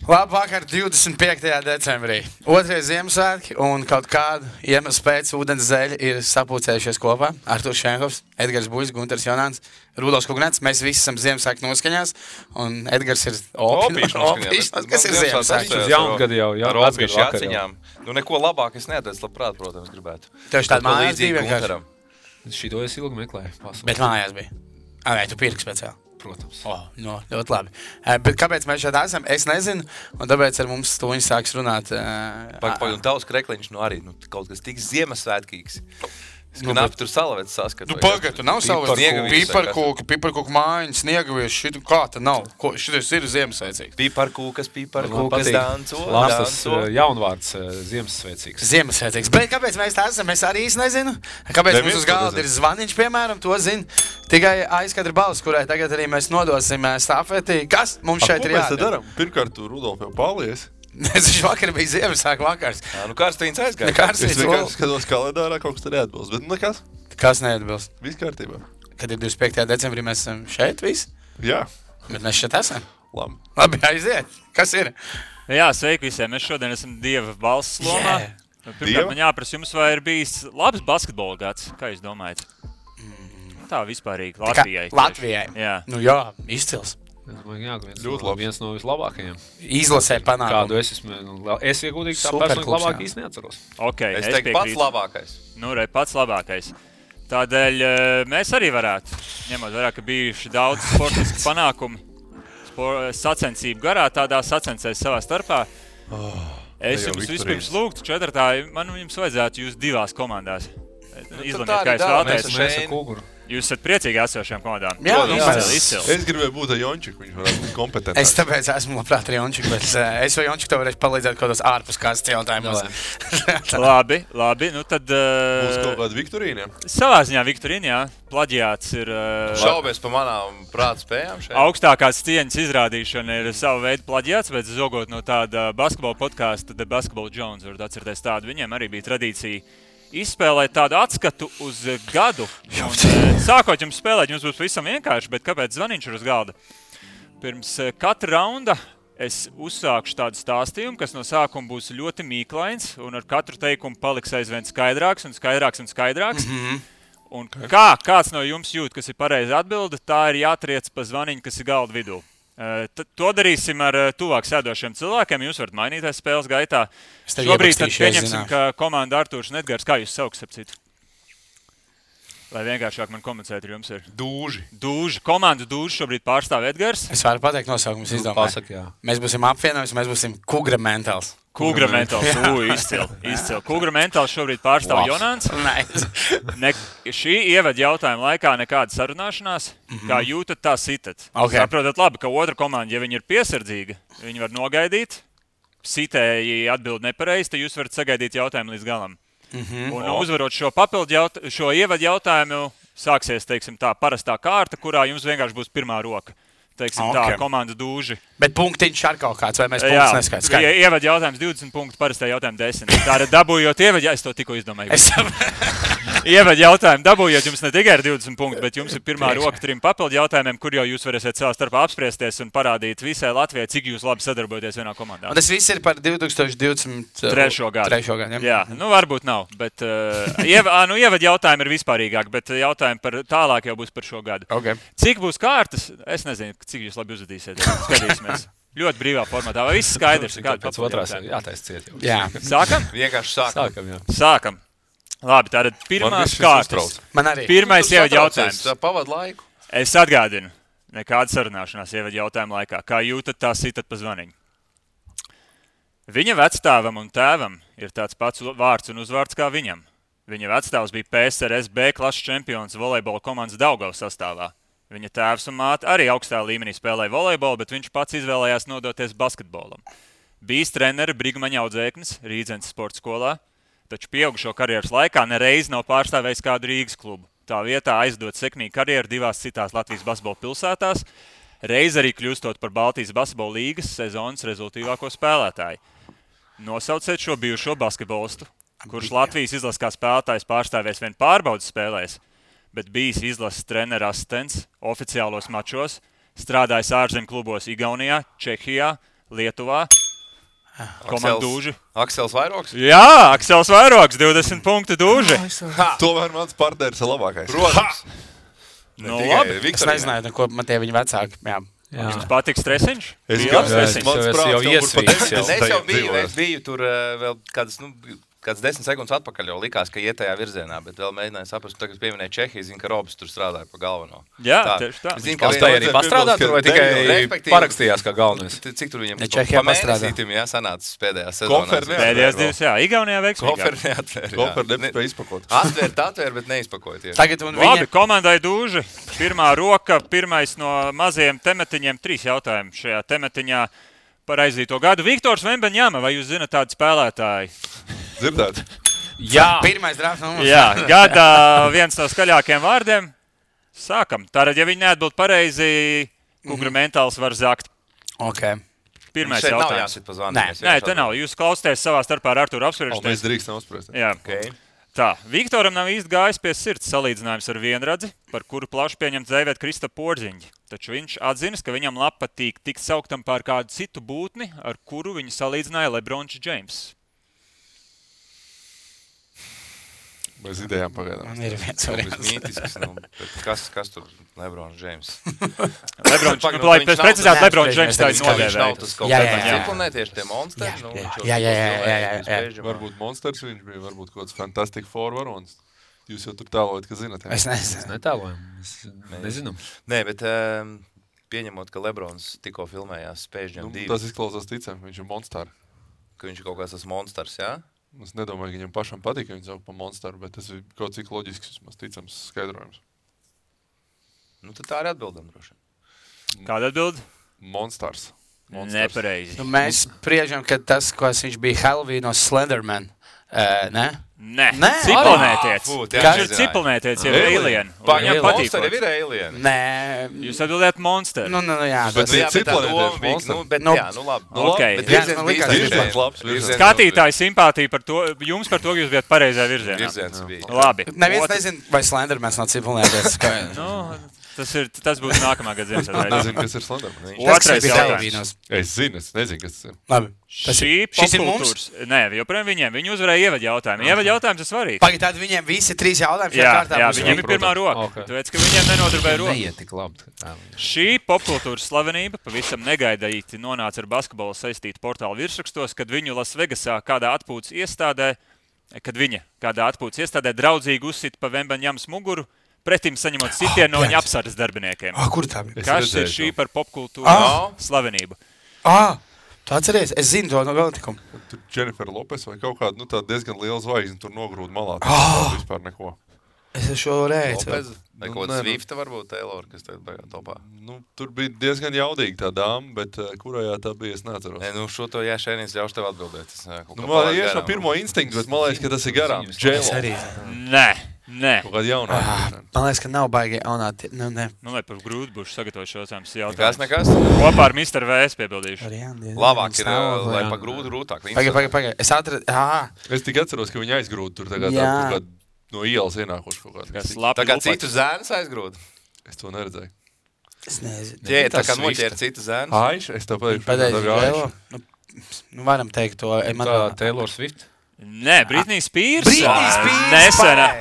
Labvakar, 25. decembrī. Otrais Ziemassvētki un kaut kādu iemeslu pēc ūdens zeļi ir sapulcējušies kopā. Arturs Šenhovs, Edgars Buļs, Gunters Jonāns, Rudolfs Kugnets. Mēs visi esam Ziemassvētku noskaņās. Un Edgars ir opīšs. Kas ir Ziemassvētki? Uz jaungadu jau. Ar opīšu jāciņām. Nu, neko labāk es neatradzu, labprāt, protams, gribētu. Tev tāda mājās bija vienkārši? Šito es ilgi meklēju. Bet mājās bija. Vai tu pirki speciāli? Protams. No, ļoti labi. Bet kāpēc mēs šeit esam? Es nezinu, un tāpēc ar mums stūņi sāks runāt. Un tavs krekliņš arī kaut kas tik Ziemassvētkīgs. Es knapi tur salavets saskatu. Pagad, tu nav salavets. Piparkūku mājiņas, sniegavies, šitu kā ta nav. Šitais ir Ziemassvētcīgs. Piparkūkas, danco. Labs tas jaunvārds Ziemassvētcīgs. Ziemassvētcīgs. Bet kāpēc mēs tā esam? Es arī nezinu. Kāpēc mums uz galda ir zvaniņš, piemēram, to zina tikai aizkadra balss, kurai tagad arī mēs nodosim stafeti. Kas mums šeit ir jādara? Ko mēs te daram? Pirmkārt, tu Rudolf jau paldies. Viņš vakar bija Ziemassvētku vakars. Nu kārstīns aizgāja. Es vienkārši skatos kalendārā, kaut kas te neatbilst. Bet nekas. Kas neatbilst? Viss kārtībā. Kad ir 25. decembrī, mēs esam šeit visi? Jā. Bet mēs šeit esam? Labi, aiziet. Kas ir? Jā, sveiki visiem. Mēs šodien esam Dieva balss lomā. Pirmkārt, man jāprasa jums, vai ir bijis labs basketbola gads? Kā jūs domājat? Tā vispārīgi. Latvijai. Latvijai? Jā. Nu jā, izcils. Viens no vislabākajiem. Izlasē panākumu. Kādu es iegūdīgi tā personīgi labāk īsti neatceros. Okay, es teiktu pats labākais. Nu, pats labākais. Tādēļ mēs arī varētu, ņemot vērā, ka bijuši daudz sportisku panākumu, sacensību garā, tādā sacensēs savā starpā. Es jums vispirms lūgtu četratā, man jums vajadzētu jūs divās komandās. Izlemiet, kā jūs vēlaties. Mēs ar Kūguru. Jūs esat priecīgi esošajām komandām. Jā, izcils. Es gribēju būt ar Jončiku, viņš varētu būt kompetents. Es tāpēc esmu labprāt ar Jončiku, bet es vai Jončiku tev varēšu palīdzēt kaut kādos ārpus kādas jautājumus. Labi, nu tad... Būs kaut kāda Viktorīna? Savā ziņā Viktorīna, jā. Plaģiāts ir... Šaubies pa manām prāta spējām šeit? Augstākās cieņas izrādīšana ir savu veidu plaģiāts, bet zogot no tāda basketbola podkāsta The Basketball Jones, varat atcerēties tādu, viņiem arī bija tradīcija izspēlēt tādu atskatu uz gadu. Sākot jums spēlēt, jums būs visam vienkārši, bet kāpēc zvaniņš ir uz galda? Pirms katra raunda es uzsākšu tādu stāstījumu, kas no sākuma būs ļoti mīklains, un ar katru teikumu paliks aizvien skaidrāks un skaidrāks un skaidrāks. Un kāds no jums jūt, kas ir pareizi atbilde, tā ir jātriec pa zvaniņu, kas ir galda vidū. To darīsim ar tuvāk sēdošiem cilvēkiem. Jūs varat mainīties spēles gaitā. Šobrīd tad pieņemsim, ka komanda Arturs un Edgars, kā jūs sauks ap citu? Lai vienkāršāk man komunicēt ar jums ir. Dūži. Komandu Dūži šobrīd pārstāv Edgars. Es varu pateikt nosaukumus izdomāju. Mēs būsim apvienojums, mēs būsim Kugra Mentāls. Kugra Mentāls, izcili. Kugra Mentāls šobrīd pārstāv Jonāns. Šī ievada jautājuma laikā nekāda sarunāšanās. Kā jūtat, tā sitat. Saprotat labi, ka otra komanda, ja viņi ir piesardzīga, viņi var nogaidīt. Sitēji atbild nepareizi, tad jūs varat sagaidīt jautājumu līdz galam. Un uzvarot šo ievadu jautājumu, sāksies, teiksim, tā parastā kārta, kurā jums vienkārši būs pirmā roka. Teiksim tā, komanda Dūži. Bet punktiņš ar kaut kāds, vai mēs punktus neskaidrs? Ievada jautājums 20 punktu, parastā jautājuma 10. Tā ir dabūjot ievadu, es to tikko izdomāju. Ievada jautājumu dabūjot jums ne tikai ar 20 punktu, bet jums ir pirmā roka 3 papildu jautājumiem, kur jau jūs varēsiet savā starpā apspriesties un parādīt visai Latvijai, cik jūs labi sadarbojaties vienā komandā. Un tas viss ir par 2023. gadu. Jā, nu varbūt nav, bet ievada jautājumi ir vispārīgāk, bet jautājumi par tālāk jau būs par šo gadu. Cik būs kārtas? Es nezinu, cik jūs labi uzvedīsiet. Skatīsimies. Ļoti brīvā formatā. Vai viss skaidrs? Pēc otrās jātais ciet jau. Jā. Sākam? Vienkārši Sākam. Labi, tātad pirmās kārtas. Man arī. Pirmais ievada jautājums. Pavad laiku. Es atgādinu. Nekāda sarunāšanās ievada jautājuma laikā. Kā jūtat, tā sitat pa zvaniņu. Viņa vecstāvam un tēvam ir tāds pats vārds un uzvārds kā viņam. Viņa vecstāvs bija PSRS B klases čempions volejbola komandas Daugavas sastāvā. Viņa tēvs un māte arī augstā līmenī spēlēja volejbolu, bet viņš pats izvēlējās nodoties basketbolam. Bijis treneri Brigmaņa audzēknis Rīdzenes sporta skolā, taču pieaugušo karjeras laikā nereiz nav pārstāvējis kādu Rīgas klubu. Tā vietā aizdot sekmīgu karjeru 2 citās Latvijas basketbola pilsētās, reiz arī kļūstot par Baltijas basketbola līgas sezonas rezultīvāko spēlētāju. Nosauciet šo bijušo basketbolistu, kurš Latvijas izlases kā spēlētājs pārstāvēs vien pārbaudas spēlēs, bet bijis izlases trenera asistents oficiālos mačos, strādājis ārzemju klubos Igaunijā, Čehijā, Lietuvā. Komanda Dūži. Aksels Vairogs. Jā, Aksels Vairogs, 20 punktu Dūži. Tomēr mans partneris ir labākais. Protams. Nu, labi. Es nezināju, ko man tie viņa vecāki. Jā. Jums patīk stresiņš? Es Bija gan stresiņš. mans jau prāts iesvīts, jau. Es jau biju tur vēl kāds 10 sekundes atpakaļ, jau likās, ka iet tajā virzienā, bet vēl mēģināju saprast, tagad pieminēju Čehiju, zinu, ka Robs tur strādāja pa galveno. Jā, tieši tā. Zinu, ka Pastāja arī pastrādāt, tur vai tikai respektīvi, parakstījās kā galvenais? Cik tur viņam Čehijā pamēnesītim, jā, sanācis pēdējā sezonā. Pēdējās divas, jā, Igaunijā veiksmīgāk. Koferi neatvēr. Koferi nepspēja izpakot. Atvēr, bet neizpakoja. Tagad un Labi, viņa... komandai Dūži. Pirmā roka, pirmais no mazajiem temetiņiem, 3 jautājumi šajā temetiņā par aizdīto gadu. Viktors Vembeņama, vai jūs zināt tādu spēlētāju? Dzirdēt? Jā, Pirmais drafts numurs. Jā, gadā viens no skaļākajiem vārdiem. Sākam. Tātad, ja viņi neatbild pareizi, Kungra mentāls var zakt. Ok. Pirmais Šeit nav jautājums. jāsit pa zvanu. Nē, te nav. Jūs klausāties savā starpā ar Arturu Mēs apspriežaties. drīkstam uzspriest. Jā. Okay. Tā, Viktoram nav īsti gājis pie sirds salīdzinājums ar vienradzi, par kuru plaši pieņemts dēvēt Krista Porziņģi. Taču viņš atzinas, ka viņam patīk tikt sauktam par kādu citu būtni, ar kuru viņu salīdzināja Lebrons Džeims. Bez idejām pagaidām. Man ir viens Tas variants. mītisks, kas tur Lebrons Džeims? Lebrons, Pagaid, lai viņš pēc nav- precizēt, Nē, Lebrons viņš Džeims tā nav- ir Viņš nav nodēvējis. tas kaut Jā, kāds jā, jā. ciklonētieši tie monsteri. Jā. Varbūt monsters viņš bija, varbūt kaut kāds fantastic four varons. Jūs jau tur tālojat, ka zināt. jā? Es nezinu. netēlojam. Es nezinu. Nē, bet pieņemot, ka Lebrons tikko filmējās Space Jam 2, Tas izklausās ticam, viņš ir monsters. ka viņš ir kaut kāds tas monsters, jā? Es nedomāju, ka viņam pašam patīk, ka viņš sauc par monsteru, bet tas ir kaut cik loģisks, vismaz ticams skaidrojums. Nu, tad tā arī atbildam droši. Kāda atbild? Monsters. Nepareizi. Nu, mēs spriežam, ka tas, ko viņš bija Halloween no Slenderman. Ne? Nē, Nē. cipelnētiec. Fū, Viņš jā, ir nezināju. cipelnētiec, ir Alien. alien. un Pagaid, Viņam patīk. monsteri ir alien. Nē. Jūs atbildējat monsteri. Nu, jā. Bet Tas, ir Jā, bet tā cipelētieši doma bija, monsteri. nu, bet Nu, jā, nu labi. Ok. Bet Jā, virziens man bija likās, virziens. virziens labs, Virziens Skatītāji simpātija par to, jums par to, ka jūs bijat pareizajā virzienā. Virziens bija. Labi. neviens Otrs- nezina, vai Slendermans nav cipelnēties. Nu, tas būs nākamā gada Ziemassvētku. Nezinu, kas ir Slenderman. Otrais bija jautājums. Halloweenos. Es zinu, es nezinu, kas tas ir. Labi. Šis ir mums? Nē, joprojām viņiem. Viņi uzvarēja ievadu jautājumu. Ievadu jautājums ir svarīgs. Pagaid, tad viņiem visi 3 jautājumi šajā Jā, kārtā jā, būs viņiem ir viņi. pirmā roka. Ok. Tāpēc, ka viņiem nenodarbēja roka. Neiet tik labi. Šī popkultūras slavenība pavisam negaidīti nonāca ar basketbolu saistītu portālu virsrakstos, kad viņa Lasvegasā kādā atpūtas iestādē draudzīgi uzsita pa Vembeņamas muguru, pretim saņemot sitienu no viņa apsardzes darbiniekiem. Kur tā bija? Kas ir redzēju šī par popkultūras slavenību? Tu atceries? Es zinu to no notikumu. Tur Jennifer Lopes vai kaut kāda, nu tā diezgan liela zvaigzne tur nogrūda malā. Tas vispār neko. Es šo reizi. Lopez, vai Nu, kaut nē, kāds nu. Swifta varbūt Taylor, kas tagad baigā topā. Nu, tur bija diezgan jaudīga tā dāma, bet kurajā tā bija, es neatceros. Nē, nu šo to jāšēnīs ļaušu tev atbildēt. Es, kaut Nu, kā man palaidu ir no garām. pirmo instinktu, bet man liekas, ka tas ir garām. Es J-Lo. arī. Nē. Kaut kāda jaunā. Man liekas, ka nav baigi jaunā. Nu, ne. Nu, lai par grūti būšu sagatavot šo Nekas, jautājumu. nekas. Kopā ar Mr. VS piebildīšu. Labāk ir, lai pa grūti rūtāk. Pagaid. Es atradu. Es tikai atceros, ka viņi aizgrūda tur tagad Jā. kaut kādu no ielas ienākuši kaut kādu. Kas labi Tā kā lupači. citu zēnus aizgrūda. Es to neredzēju. Es nezinu. Ķē, tā kā Swifta. noķēra citu zēnus. Aiš, es tev pateikšu, Pareizi, tā bija Žēlo. Nu, varam teikt to. Tā Taylor Swift. Nē, Britnija Spears. Britney Spears. Nesena.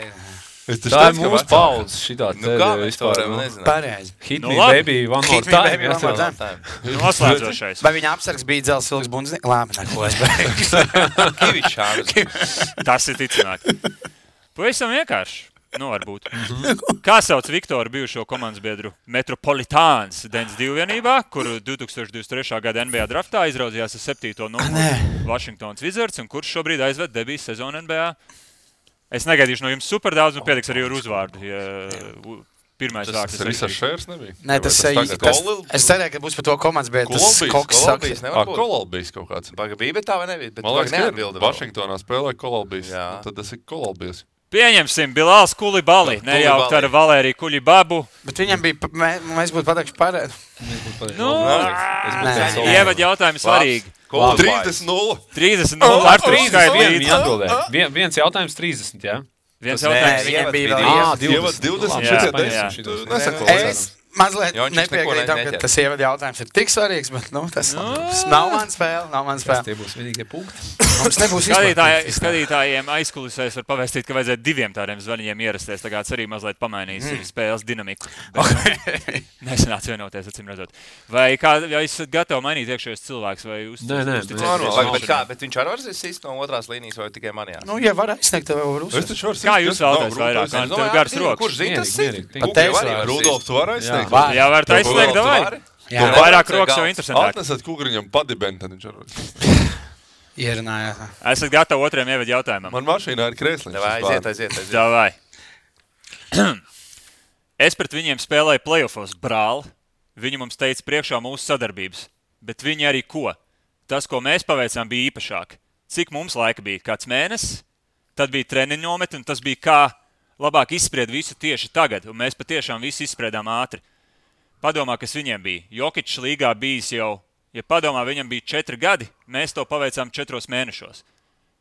Es taču Tā ir teicu, ka mūsu vecāka. paudze. Šitā Nu kā mēs to varam nezināt? Pareizi. Hit Nu me, labi. baby, one more Hit me, time. baby, one more jāsaka. time. Noslēdzošais. Vai viņa apsargs bija dzels ilgs bundznieks? Labi, neko es beigšu. Kivičs. Tas ir ticamāk. Pavisam vienkārši. Nu, varbūt. Kā sauc Viktoru bijušo komandas biedru Metropolitāns Dens 2 vienībā, kuru 2023. gada NBA draftā izraudzījās ar 7. numuru Washingtons Wizards, un kurš šobrīd aizved debijas sezonu NBA? Es negaidīšu no jums super daudz, un pietiks arī ar uzvārdu. Ja pirmais vārds Tas ir visas šērs nebija? Nē, tas Vai ir. tagad? Es cerēju, ka būs par to komandas, bet tas Kolobijs, Koks saka. Kolobijs nevar būt. Kolobijs kaut kāds. Baga bija, bet tā vai nebija? Bet Man tu liekas, ka ir. neatbildi vēl. Vašingtonā spēlē Kolobijs. Jā. Nu, tad tas ir Kolobijs. Pieņemsim Bilāls Kulibali, nejaukt ar Valēriju Kulibabu. Bet viņam bija, mēs būtu pateikši pareizi. Nu, Nē. ievad jautājumi svarīgi. 30-0. 30 ar 3 Viņi skaidrīt. atbildēja. Viens jautājums 30, jā? Viens Nē, jautājums. viņam bija ievads vēl bija Ā, 20, Jā, 10, jā. tu nesako. Es mazliet Jončiks neko nepiekrītam, ka neķer. tas ievada jautājums ir tik svarīgs, bet tas nav mans spēle. Tie būs vienīgie punkti. Mums nebūs Skatītājiem aizkulisēs var pavēstīt, ka vajadzētu 2 tādiem zvaņiem ierasties. Tā kā tas arī mazliet pamainīs spēles dinamiku. Nesanāca vienoties, acīm redzot. Vai esat gatavi mainīt iekšējos cilvēkus? Nē. Bet viņš arī var sist no otrās līnijas vai tikai manījās? Nu, ja var aizsniegt, tev var uzsākt. Kā jūs vēlaties vairāk? Tev gars rokas. Kurš zina, tas ir? Rudolf, tu vari aizsniegt? Jā, var aizsniegt, davai. Jā. Vairāk rokas jau interesantāk. Atnesat kukriņam padibeni, tad viņš var. Ierunājāt. Esat gatavi otriem ievadu jautājumam? Man mašīnā ir krēsliņš. Aiziet. Davai. Es pret viņiem spēlēju playoffos, brāl. Viņi mums teica priekšā mūsu sadarbības. Bet viņi arī ko? Tas, ko mēs paveicām, bija īpašāk. Cik mums laika bija? Kāds mēnesis? Tad bija treniņu nometne, un tas bija kā labāk izspried visu tieši tagad. Un mēs patiešām visu izspriedām ātri. Padomā, kas viņiem bija. Jokičs līgā bijis jau, ja padomā, viņam bija 4 gadi, mēs to paveicām 4 mēnešos.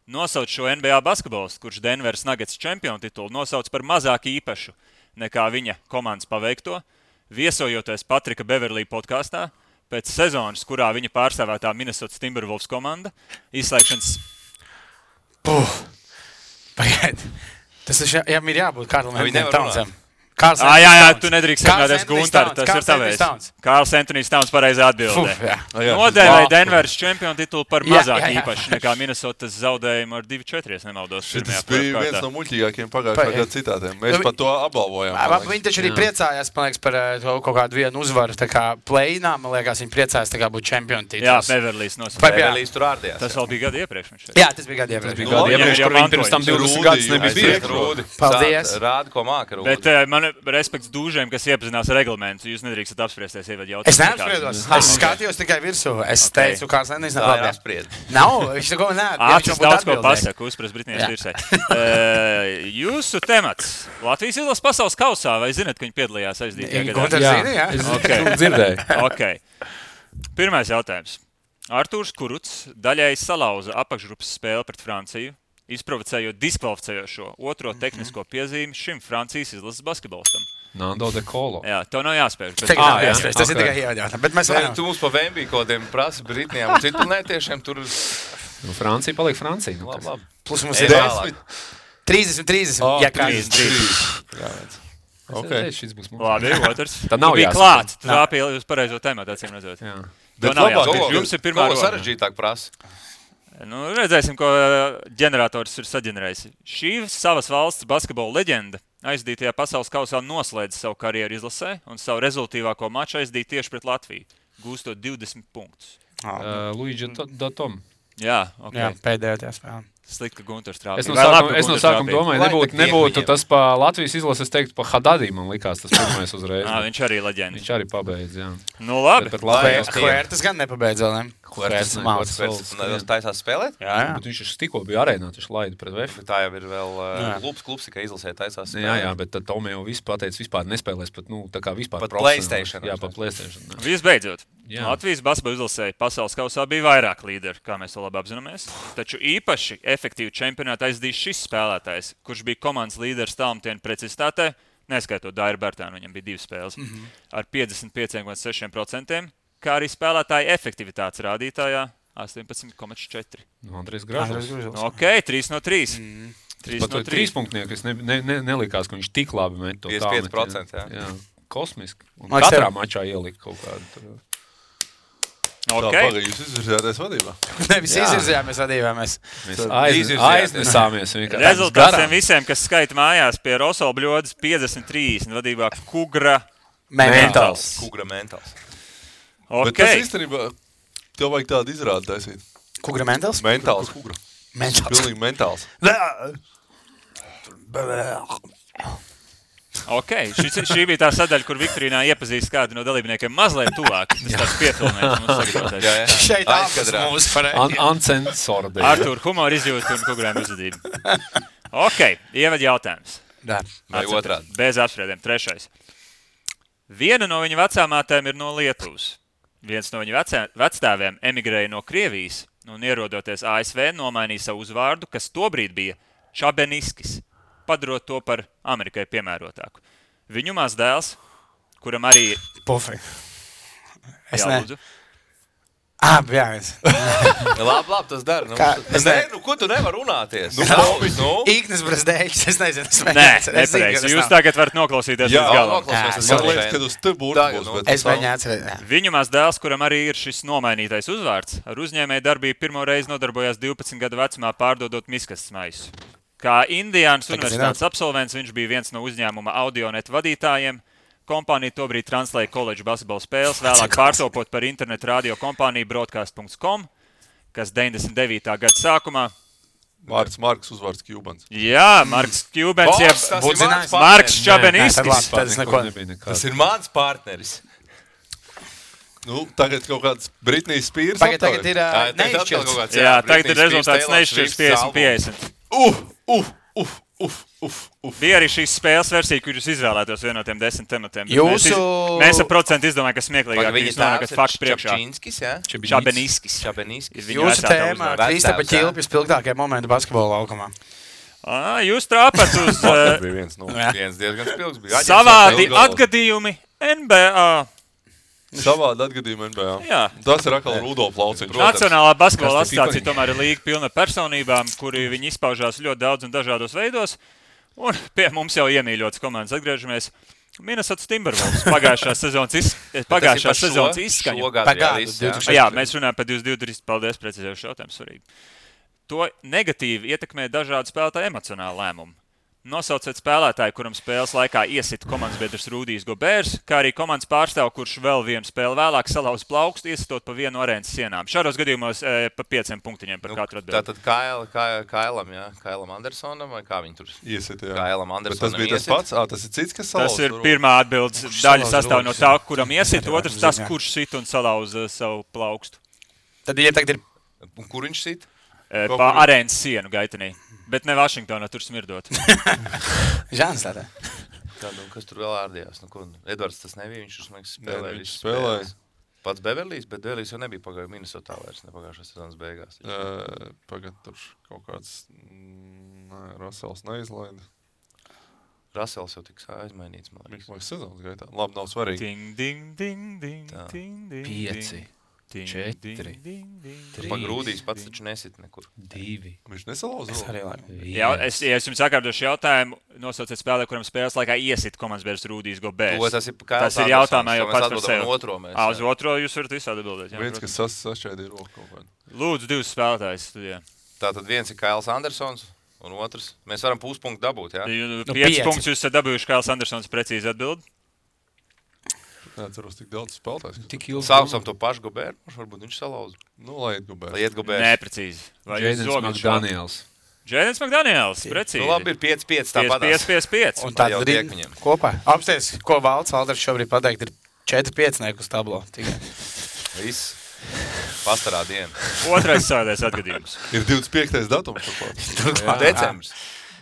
Nosauc šo NBA basketbolistu, kurš Denveras Nuggets čempionu titulu nosauc par mazāk īpašu nekā viņa komandas paveikto, viesojoties Patrika Beverlī podkāstā, pēc sezonas, kurā viņa pārstāvētā Minnesota Timberwolves komanda, izslēgšanas... Pagaid. Tas ir jābūt Karlam nevar Townsam. Jā, tu nedrīkst sarunāties Guntaru, tas ir tavējs. Kārls Antonijs Towns pareizi atbildē. Nodēvēja Denveras čempionu titulu par mazāk īpašu nekā Minnesotas zaudējumu ar 2-4, ja nemaldos. Šis bija viens no muļķīgākiem pagājušā gada citātiem. Mēs par to apbalvojām. Viņi taču arī priecājās, man liekas, par kaut kādu vienu uzvaru. Tā kā play-inā, man liekas, viņi priecājās tā kā būt čempionu tituls. Jā, Beverlīs nosauca. Beverlīs tur ārdījās. Tas vēl bija gadu iepriekš. Jā, tas bija gadu iepriekš. Kur viņi pirms tam 20 gadus nebija Rūdi. Paldies. Rādi, ko māka Rūdi. Bet man respekts dūžiem, kas iepazinās reglamentu. Jūs nedrīkstat apspriesties ievadu jautājumu. Es neapspriedos. Es skatījos tikai virsū. Es teicu, Kārls Antonijs Tā ir apspried. Nav, viņš neko neatbild. Ātris daudz ko pasaka, uzprast Britnijas virsē. Jūsu temats. Latvijas izlases pasaules kausā, vai zināt, ka viņi piedalījās aizdītajā gadā? Gunters zina, jā. Es dzirdēju. Okay. Pirmais jautājums. Artūrs Kuruts daļēji salauza apakšgrupas spēli pret Franciju, izprovocējot diskvalificējošo otro tehnisko piezīmi šim Francijas izlases basketbolistam. Nando de Colo. Jā, tev nav jāspēj. Tas ir tikai ievadījums. Bet mēs varam. Tu mums pa Vembī kodiem prasa Britnijām un citplanētiešiem tur... Francija paliek Francija. Labi. Plus mums ir 30. Ja kā 30. Okay. Šis būs mums. Labi, otrs. Tā nav bija jāspēj. klāt. Tu trāpīji uz pareizo tēmatu, acīm redzot. Jā. To nav jāspēj. Jums ir pirmā runa. runa. Sarežģītāk prasa. Nu, redzēsim, ko ģenerators ir saģenerējis. Šī savas valsts basketbola leģenda aizdītajā pasaules kausā noslēdz savu karjeru izlasē un savu rezultīvāko maču aizdīt tieši pret Latviju, gūstot 20 punktus. Luigi Datom. Jā, okay. Jā, pēdējā tajā spēlē. Slikti, ka Gunters trāpīja. Es no sākuma domāju, nebūtu tas pa Latvijas izlases, es teiktu, pa Hadadī, man likās tas pirmais uzreiz. Viņš arī leģenda. Viņš arī pabeidz, jā. Nu, labi. Huertas gan nepabeidz vēl, ne? Huertas taisās spēlēt? Jā. Bet viņš tikko bija arēnā, viņš laida pret VF. Tā jau ir vēl klubs, ka izlasē taisās spēlēt. Jā, bet tad Tomē jau viss pateica, vispār nespēlēs pat, tā kā vispār pat PlayStation. Jā, pat PlayStation. Visbeidzot, Jā. Latvijas basketbola izlasē pasaules kausā bija vairāk līderi, kā mēs to labi apzināmies. Taču īpaši efektīvu čempionātu aizdīs šis spēlētājs, kurš bija komandas līderis tālmetienu precizitātē, neskaitot Dairu Bērtānu, viņam bija 2 spēles, ar 55,6%, kā arī spēlētāja efektivitātes rādītājā 18,4%. Andrejs Gražs. Ok, 3 no 3. 3 no 3. 3 punktnieki, es nelikās, ka viņš tik labi met to 55%, jā. Kosmiski. Un Man katrā tev- mačā ielika kaut kādu. Ok, Pagaid, jūs izvirzījāties vadībā. Nevis izvirzījāmies vadībāmies. Mēs izvirzījāmies. aiznesāmies vienkārši. rezultāts tiem visiem, kas skaita mājās pie Rosola Bļodas 50-30 vadībā Kugra Mentāls. Kugra mentāls. Bet Ok, tas īstenībā, tev vajag tādu izrādi taisīt. Kugra mentāls? Mentāls kugra. Mentāls. Pilnīgi mentāls. ok. Šī bija tā sadaļa, kur Viktorīnā iepazīst kādu no dalībniekiem mazliet tuvāk. Tas tāds pietulnējums mums sagatavotais. Šeit ārpus Aizkadrā. mūsu pareizi. Ancensora dēļ. Artūr, humora izjūta un Kugrēm uzvedība. Ok, ievad jautājums. Jā. Vai otrādi? Bez apspriediem. 3. Viena no viņa vecāmātēm ir no Lietuvas. Viens no viņa vecstāviem emigrēja no Krievijas un ierodoties ASV nomainīja savu uzvārdu, kas tobrīd bija Čabeniskis, padarot to par Amerikai piemērotāku. Viņu mazdēls kuram arī... Pofīgi. Es Jā, ne. lūdzu. Jā, es. Labi, tas dara. Ko tu nevar runāties? Īknis Brazdēļs, es nezinu. Nepareizi. Jūs tagad varat noklausīties līdz galam. Man liekas, kad uz te burbuļos. Es mēģināju atcerēt. Viņu maz dēls, kuram arī ir šis nomainītais uzvārds, ar uzņēmēju darbību pirmo reizi nodarbojās 12 gadu vecumā pārdodot miskastes maisus. Kā Indiānas universitātes absolvents viņš bija viens no uzņēmuma Audionet vadītājiem. Kompānija tobrīd translēja koledžu basketbola spēles, vēlāk pārtopot par internetu radio kompāniju Broadcast.com, kas 99. gada sākumā. Marks uzvārds Kjubans. Jā, Marks Kjubans, jeb Marks Čabeniskis. Tas ir mans partneris. Tagad kaut kāds Britnijas Spears. Tagad ir neizšķirts. Jā, tagad ir rezultāts neizšķirts 50-50. Bija arī šīs spēles versija, kur jūs izvēlētos vienu no tiem 10 tematiem. Mēs ar procentu izdomājam, ka smieklīgāk jūs nonākat faktu priekšā. Čabeniskis. Jūsu tēmā Kristapa Ķilpja spilgtākie momenti basketbola laukumā. Jūs trāpat uz viens diezgan spilgs bija. Savādi atgadījumi NBA. Savādi atgadījumi NBA. Jā. Tas ir atkal Rudolf Lauciņš. Nacionālā basketbola asociācija tomēr ir līga pilna personībām, kuri viņi izpaužās ļoti daudz un dažādos veidos. Un pie mums jau iemīļotas komandas atgriežamies. Minnesota Timberwolves pagājušās sezonas izskaņu. Jā, mēs runājam par 22. Paldies, precizējuši jautājumu, svarīgi. To negatīvi ietekmē dažādu spēlētāju emocionālu lēmumu. Nosauciet spēlētāju, kuram spēles laikā iesita komandas biedrs Rudijs Gobērs, kā arī komandas pārstāvu, kurš vēl vienu spēli vēlāk salauz plaukstu, iesitot pa vienu arēnas sienām. Šādos gadījumos pa 5 punktiņiem par katru atbildi. Tātad Kailam Andersonam, vai kā viņi tur iesita? Kailam Andersonam tas bija tas pats? Tas ir cits, kas salauz? Tas ir pirmā atbildes daļa sastāv no tā, kuram iesita, otrs tas, kurš sit un salauz savu plaukstu. Tad, ja tagad ir... Un kur viņš sit? Pa arēnas sienu gaitenī. Bet ne Vašingtonā, tur smirdot. Žāns tādā. Kas tur vēl ārdījās? Edvards tas nebija, viņš spēlēja. Pats Beverlijs, bet Beverlijs jau nebija pagājuši Minnesotā vairs, ne pagājušās sezonas beigās. Pagad tur kaut kāds Russells neizlaida. Russells jau tiks aizmainīts, man liekas. Sezonas gaitā. Labi, nav svarīgi. Ding, ding, ding, ding, ding, ding. 5. 4. Pagrūdīs pats taču nesit nekur. 2. Viņš nesalauza. Ja es jums sakārtošu jautājumu, nosauciet spēlē, kuram spēles laikā iesit komandas biedrs Rudijs Gobērs. Tas ir jautājumā jau pats par sevi. Uz otro jūs varat visādi atbildēt. Viens, kas sašķēdīja roku kaut kādu. Lūdzu, 2 spēlētājs studijā. Tātad viens ir Kails Andersons un otrs. Mēs varam puspunktu dabūt, jā? 5 punktus jūs esat dabūjuši, Kails Andersons precīzi atbild. Neatceros tik daudz spēlētājs. Saucam to pašu Gobēru, varbūt viņš salauza. Lai iet Gobērs. Neprecīzi. Jēdens Makdaniels. Jēdens Makdaniels, precīzi. Labi, ir 5-5 tāpat. 5-5-5. Un tad ir kopā. Apsties, ko Valds Alders šobrīd pateikt, ir 4-5 uz tablo. Viss. Pastarā diena. Otrais sādēs atgadījums. Ir 25. datums. Decembris.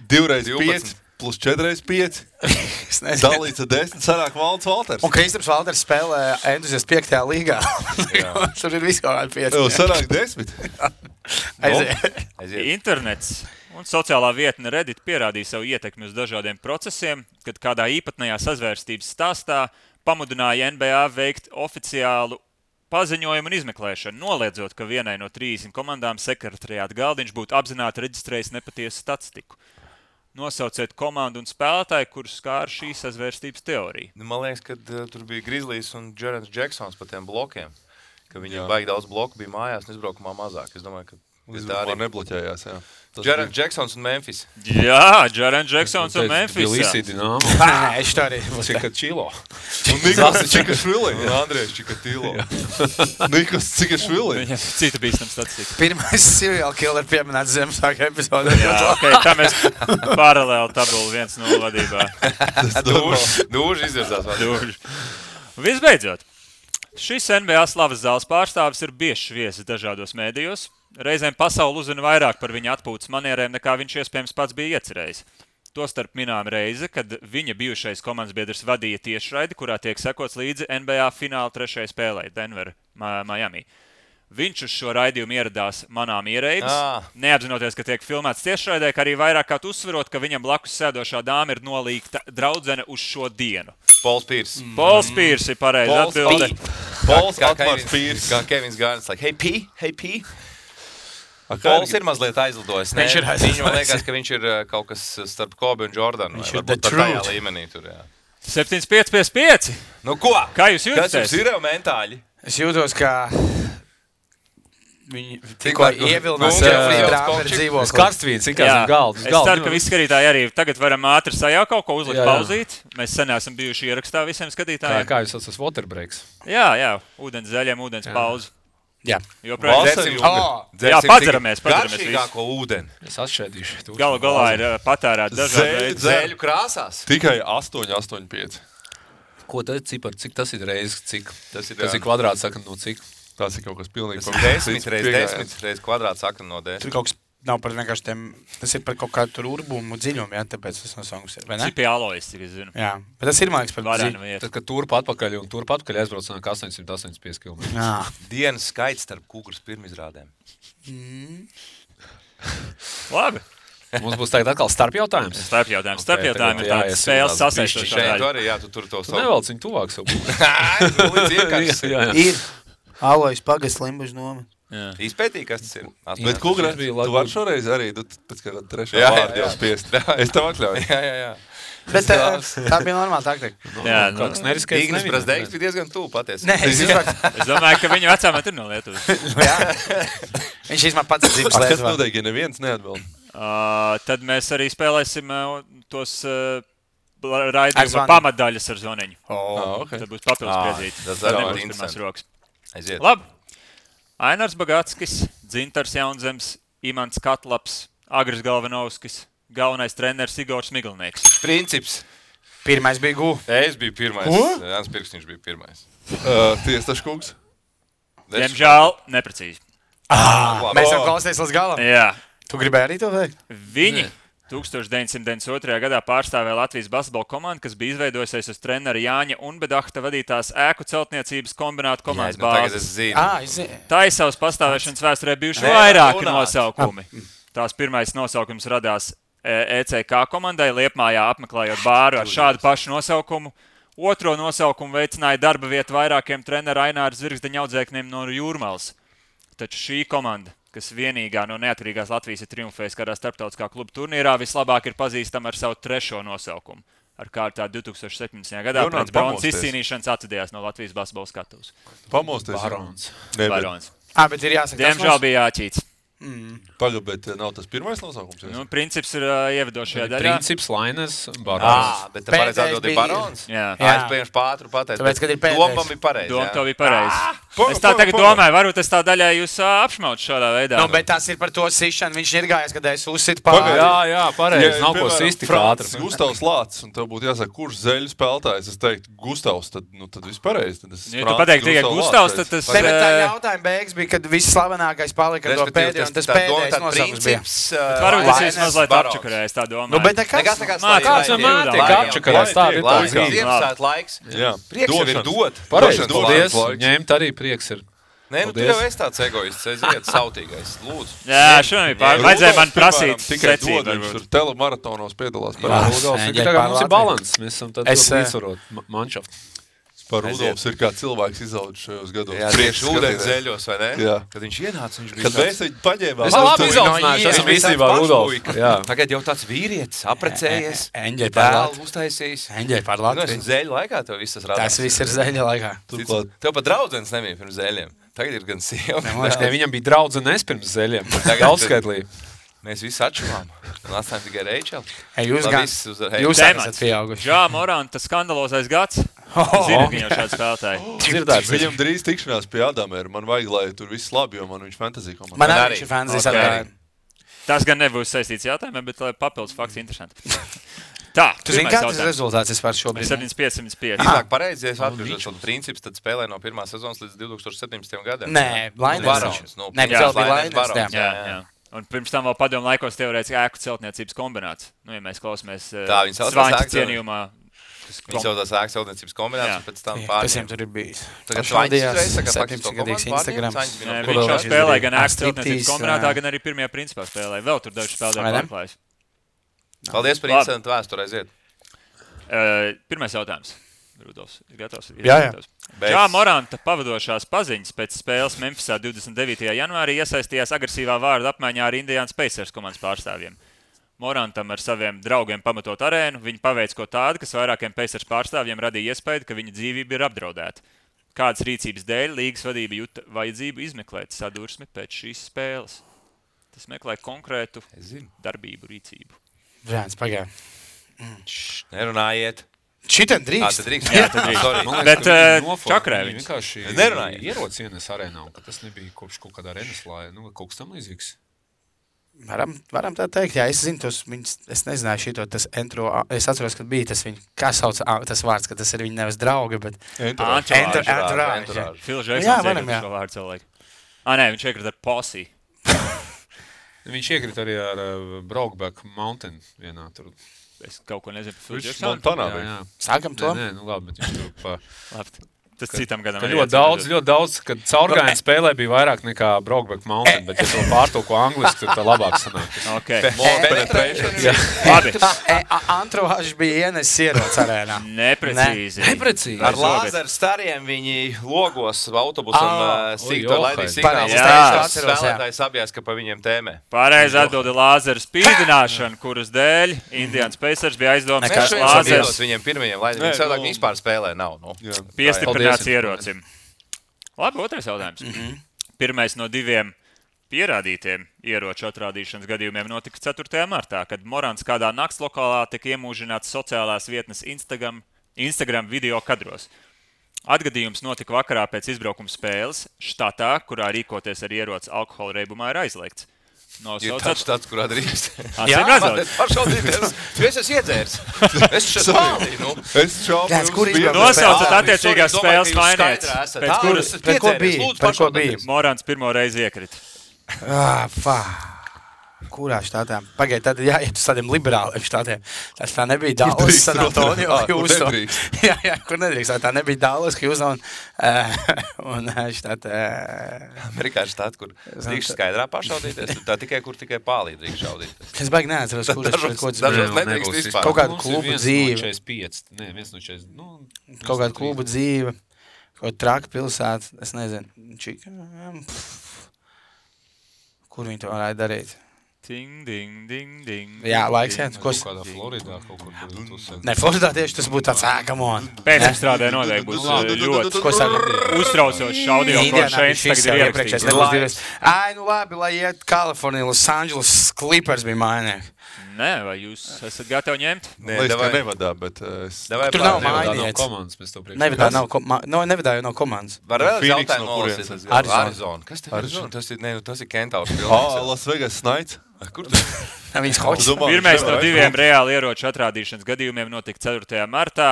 2x5. Plus 4x5. Dalīts ar 10. Sarāk Valds Valters. Un Kristaps Valters spēlē entuziast 5. līgā. Tur ir viss kaut kādi 5. Sarāk 10. Aiziet. Internets un sociālā vietne Reddit pierādīja savu ietekmi uz dažādiem procesiem, kad kādā īpatnējā sazvērstības stāstā pamudināja NBA veikt oficiālu paziņojumu un izmeklēšanu, noliedzot, ka vienai no 30 komandām sekretariāta galdiņš būtu apzināti reģistrējis nepatiesu statistiku. Nosauciet komandu un spēlētāju, kurus skāra šī sazvērstības teorija. Man liekas, ka tur bija Grizzlies un Jaren Jacksons par tiem blokiem. Ka viņiem baigi daudz bloku bija mājās un izbraukumā mazāk. Es domāju, ka tā arī nebloķējās, jā. Jaren Jacksons un Memphis. Jā, Jaren Jacksons un Memphis. Tbilisi Dinamo. Es tā arī. Čikačilo. Un Nikos Čikašvili. Un Andrejs Čikatīlo. Nikos Čikašvili. Viņam cita bīstam statistika. Pirmais serial killer pieminēts Ziemassvētku epizodē. Jā, tā mēs paralēli tabulu 1-0 vadībā. Dūži izvirzās. Dūži. Visbeidzot, šis NBA slavas zāles pārstāvis ir biežs viesis dažādos mēdījos. Reizēm pasauli uzzina vairāk par viņa atpūtas manierēm, nekā viņš iespējams pats bija iecerējis. Tostarp minām reize, kad viņa bijušais komandas biedrs vadīja tiešraidi, kurā tiek sekots līdzi NBA fināla 3. spēlē Denver, Miami. Viņš uz šo raidījumu ieradās manām ierēbis, neapzinoties, ka tiek filmēts tiešraidē, kā arī vairāk kā uzsverot, ka viņam blakus sēdošā dāma ir nolīgta draudzene uz šo dienu. Pols Pīrs. Pols Pīrs ir pareizi atbilde. Pols Atmārs Pīrs. Kā Kevins Gārns, like, hey P. Pols ir mazliet aizlidojis. Viņam liekas, ka viņš ir kaut kas starp Kobe un Jordanu. Viņš ir tajā līmenī tur, jā. 7-5-5-5. Nu ko? Kā jūs jūtaties? Kas jums ir jau mentāļi? Es jūtos, ka viņi tikko ievilinās trāperi dzīvokli. Karstvīns, kā zem galda. Es ceru, ka visi skatītāji arī tagad varam ātri sajaukt kaut ko uzlikt pauzīt. Mēs sen esam bijuši ierakstā visiem skatītājiem. Kā jūs esat waterbreaks? Jā, ūdens zaļiem, ūdens pauzi. Jā. Jā, padzeramies visi. Garšīgāko ūdeni. Es atšķēdīšu. Galu galā ir patērēt dažādi veidi. Zēļu krāsās. Tikai 8,85. Ko tad cipar? Cik tas ir reizes? Cik? Tas ir kvadrāts sakam no cik? Tas ir kaut kas pilnīgi. Tas ir 10 reizes kvadrāts sakam no 10. Tur kaut kas nav par vienkārši tiem, tas ir par kaut kādu tur urbumu dziļumu, jā, tāpēc tas nosaukums ir, vai ne? Cipi alojas, cik es zinu. Jā, bet tas ir, man liekas, par dziļumu. Tad, kad turp atpakaļ aizbrauc nāk 885 km. Dienas skaits starp Kūgras pirmizrādēm. Labi. Mums būs tagad atkal starpjautājums. Starpjautājums ir tāds spēles sasaistošā daļa. Tu arī, jā, tu tur to savu. Nevelc viņu tuvāk savu. Ir alojas pagasts Limbažu nomet. Izpētīja, kas tas ir. Bet Kūgras, tu vari šoreiz arī, pēc kā trešā vārdu jau spiest. Es tev atļauju. Jā. Bet tā bija normāla taktika. Jā, kaut kas neriskēts. Ignis Brazdeiks bija diezgan tuvu patiesi. Nē, es domāju, ka viņu vecāmēt ir no Lietuvas. Viņš īstenībā pats ir dzīves Lietuvā. Kas noteikti, ja neviens neatbild? Tad mēs arī spēlēsim tos raidījuma pamatdaļas ar zvoniņu. Tad būs papildus piezīti. Tas nebūs pirmās rokas. Aiziet. Labi. Ainars Bagatskis, Dzintars Jaunzems, Imants Katlaps, Agris Galvanovskis, galvenais treneris Igors Miglnieks. Princips. Pirmais bija Gu. Es biju pirmais. Jānis Pirksniņš bija pirmais. Tiestaškungs. Diemžēl neprecīzi. Mēs jau klausīties līdz galam. Jā. Tu gribēji arī to veikt? Viņi 1992. gadā pārstāvēja Latvijas basketbola komandu, kas bija izveidojusies uz trenera Jāņa Unbedahta vadītās ēku celtniecības kombinātu komandas bāzes. Tā ir savas pastāvēšanas vēsturē bijuši vairāki nosaukumi. Tās pirmais nosaukums radās ECK komandai Liepmājā apmeklējot bāru ar šādu pašu nosaukumu. Otro nosaukumu veicināja darba vietu vairākiem trenera Aināra Zvirgzdeņa audzēkņiem no Jūrmalas. Taču šī komanda, kas vienīgā no neatkarīgās Latvijas ir triumfējusi kādā starptautiskā kluba turnīrā, vislabāk ir pazīstama ar savu trešo nosaukumu. Ar kārtā 2017. gadā pēc bronzas izcīnīšanas atvadījās no Latvijas basketbola skatuves. Pamosties. Barons. Bet ir jāsaka, diemžēl bija jāķīts. Pagaid, bet nav tas pirmais nosaukums? Princips ir ievedošajā daļā. Princips, Lainers, Barons. Bet pareizi atbild ir Barons? Jā. Es pieņemšu pātru pateicu. Tāpēc, kad ir pēdējais. Doma bija pareizi. Doma to bija pareizi. Es tā tagad domāju, varbūt es tā daļā jūs apšmautu šādā veidā. Bet tas ir par to sišanu. Viņš ir gājis, kad es uzsitu pāri. Jā, pareizi. Nav ko sisti kā ātri. Gustavs Lācis, un tev būtu jāsaka, kurš zeļu spēlētājs. Es teiktu, Gustavs, tad viss pareizi. Ja tu pateiktu tikai Gustavs, tad tas... Tā jautājuma beigas bija, kad viss slavenākais palika ar to pēdējo, un tas pēdējais nosaukums bija. Varbūt es esmu mazliet apčakarējis, tā domāju. Bet nekas. Kāds vienmēr tiek apčakarējis, tā ir tā Ziemassvētku laiks. Prieks jau ir dot. Pareizi, paldies. Ņemt arī prieks ir. Nē, tu jau esi tāds egoists, aiziet, sautīgais, lūdzu. Jā, šodien vajadzēja man prasīt secību. Viņš tur telemaratonos piedalās. Tagad mums ir balans, mēs esam tad līdzsvarot manšaftu. Par Rudolfs ir kā cilvēks izaudzis šajos gados. Jā, tieši ūdens zeļos, vai ne? Jā. Kad viņš ienāca, viņš bija Kad mēs viņu paņēmām. Es labi izaudzināšu, esam īstenībā Rudolfs. Tagad jau tāds vīrietis, aprecējies, Eņģeļ par dēlu uztaisījis. Eņģeļ par Latviju. Zeļu laikā tev viss tas radās. Tas viss ir zeļa laikā. Tev pat draudzenes nebija pirms zeļiem. Tagad ir gan sieva. Viņam bija draudzenes pirms zeļiem. Daudzskaitlī. Mēs visi atšķirām. Un atstājām tikai Reičelu. Jūs esat pieauguši. Jā, Moranta skandalozais gads. Zini, ka jau šāds spēlētāji. Viņam drīz tikšanās pie Adamēra. Man vajag, lai tur viss labi, jo man viņš fantasy komanda. Man arī viņš ir fantasy. Tas gan nebūs saistīts jautājumiem, bet papildus fakts interesanti. Tā, tu zini, kāds ir rezultāts vispār šobrīd? 75-75. Iznāk pareizi, ja es atbildot šo principu, tad spēlē no pirmās sezonas līdz 2017. gadam. Nē, Lainers. Nē, vēl bija Lainers. Jā. Un pirms tam vēl padomu laikos teorētiski ēku celtniecības kombināts. Ja mēs klausāmies Svaņķa cienījumā Viņi saucās ēkas celtniecības kombinācijas, pēc tam pārņēma. Kas viņam tur ir bijis? Tagad Švaldījās 17-gadīgs Instagram. Viņš jau spēlēja gan ēkas celtniecības kombinātā, gan arī pirmajā principā spēlēja. Vēl tur daži spēlēja pārklājas. Paldies par incidentu vēsturē, aiziet. Pirmais jautājums. Rudolfs, ir gatavs? Jā. Jā, Moranta pavadošās paziņas pēc spēles Memphisā 29. janvārī iesaistījās agresīvā vārda apmaiņā ar Indiana Pacers komandas pārstāvjiem. Morantam ar saviem draugiem pamatot arēnu, viņi paveic ko tādu, kas vairākiem Pacers pārstāvjiem radīja iespēju, ka viņa dzīvība ir apdraudēta. Kādas rīcības dēļ līgas vadība juta vajadzību izmeklēt sadursmi pēc šīs spēles? Tas meklē konkrētu darbību, rīcību. Žēns, pagāja. Nerunājiet. Šitam drīkst. Jā, tad drīkst. Bet čakrē viņi vienkārši nerunāja. Ierodas ienes arēnā, un ka tas nebija kopš kaut kādā arenaslā, kaut kas tam līdzīgs. Varam tā teikt, jā, es zinu tos viņus, es nezināju šito, tas entro, es atceros, kad bija tas viņa, kā sauc tas vārds, ka tas ir viņa nevis draugi, bet Entourage. Phil Jacksons iekrita šo vārdu cilvēku. Nē, viņš iekrita ar Posse. Viņš iekrita arī ar Brokeback Mountain vienā tur. Es kaut ko nezinu par Phil Viņš Jacksonu. Montanā bija. Sākam to? Nē, labi, bet viņš tur pa... Labi. Tas citam gadam. Ļoti daudz, kad caurgājienu spēlē bija vairāk nekā Brokeback Mountain, bet ja to pārtulko angliski, tad tā labāk sanāk. Labi. Entourage bija ienesis ierodas arēnā. Neprecīzi. Ar lāzeru stariem viņi logos autobusam sīkto laidīs signālus. Spēlētājs apjās, ka pa viņiem tēmē. Pareizi atbildi lāzeru spīdināšanu, kuras dēļ Indiana Pacers bija aizdomās, ka lāzers viņiem pirmajiem laidīs. Viņi cilvēki vispār spēlē nav. Piestiprināts ierocim. Labi, otrais jautājums. Pirmais no 2 pierādītiem ieroču atrādīšanas gadījumiem notika 4. martā, kad Morants kādā naktslokālā tika iemūžināts sociālās vietnes Instagram video kadros. Atgadījums notika vakarā pēc izbraukuma spēles štatā, kurā rīkoties ar ieroci alkohola reibumā ir aizliegts. Ir tāds štats, kurā drīkst. Jā, pašvaldīties. Es esmu iedzērs. Es šeit spēlīju. Es šaubu. Nosaucat attiecīgās spēles mainietes. Par ko bija? Morants pirmo reizi iekrita. Kurā štatā? Pagaid, tad jāiet uz tādiem liberāliem štatiem. Tas tā nebija Dallas, San Antonio, Houston. Jā, kur nedrīkst. Tā nebija Dallas, Houston un štatā. Amerikā štatā, kur drīkst skaidrā pašaudīties. Tā tikai, kur tikai pālī drīkst šaudīties. Es baigi neatceros, kurš dažos nedrīkst vispār. Kaut kādu klubu dzīve. Kaut kādu klubu dzīve. Kaut traka pilsēta. Es nezinu. Kur viņi to varētu darīt? Ding, ding, ding, ding. Jā, laiks iet. Kaut kādā Floridā kaut kur. Ne, Floridā tieši tas būtu tāds ākamon. Pēcapstrādē noteikti būs ļoti uztraucošs audio, ko šeit tagad ir ierakstīts. Ai, nu labi, lai iet Kalifornija, Los Angeles Clippers bija mainnieki. Nē, vai jūs esat gatavi ņemt? Liekas, ka nevadā, bet... Tur nav mainietis. Nevadā jau no komandas. Var vēl jautājumu nolasīt? Arizona. Kas te Arizona? Tas ir Kentaurs pilnīgs. Las Vegas Knights. Kur Viņš hoķis. Pirmais no 2 reāli ieroču atrādīšanas gadījumiem notika 4. martā.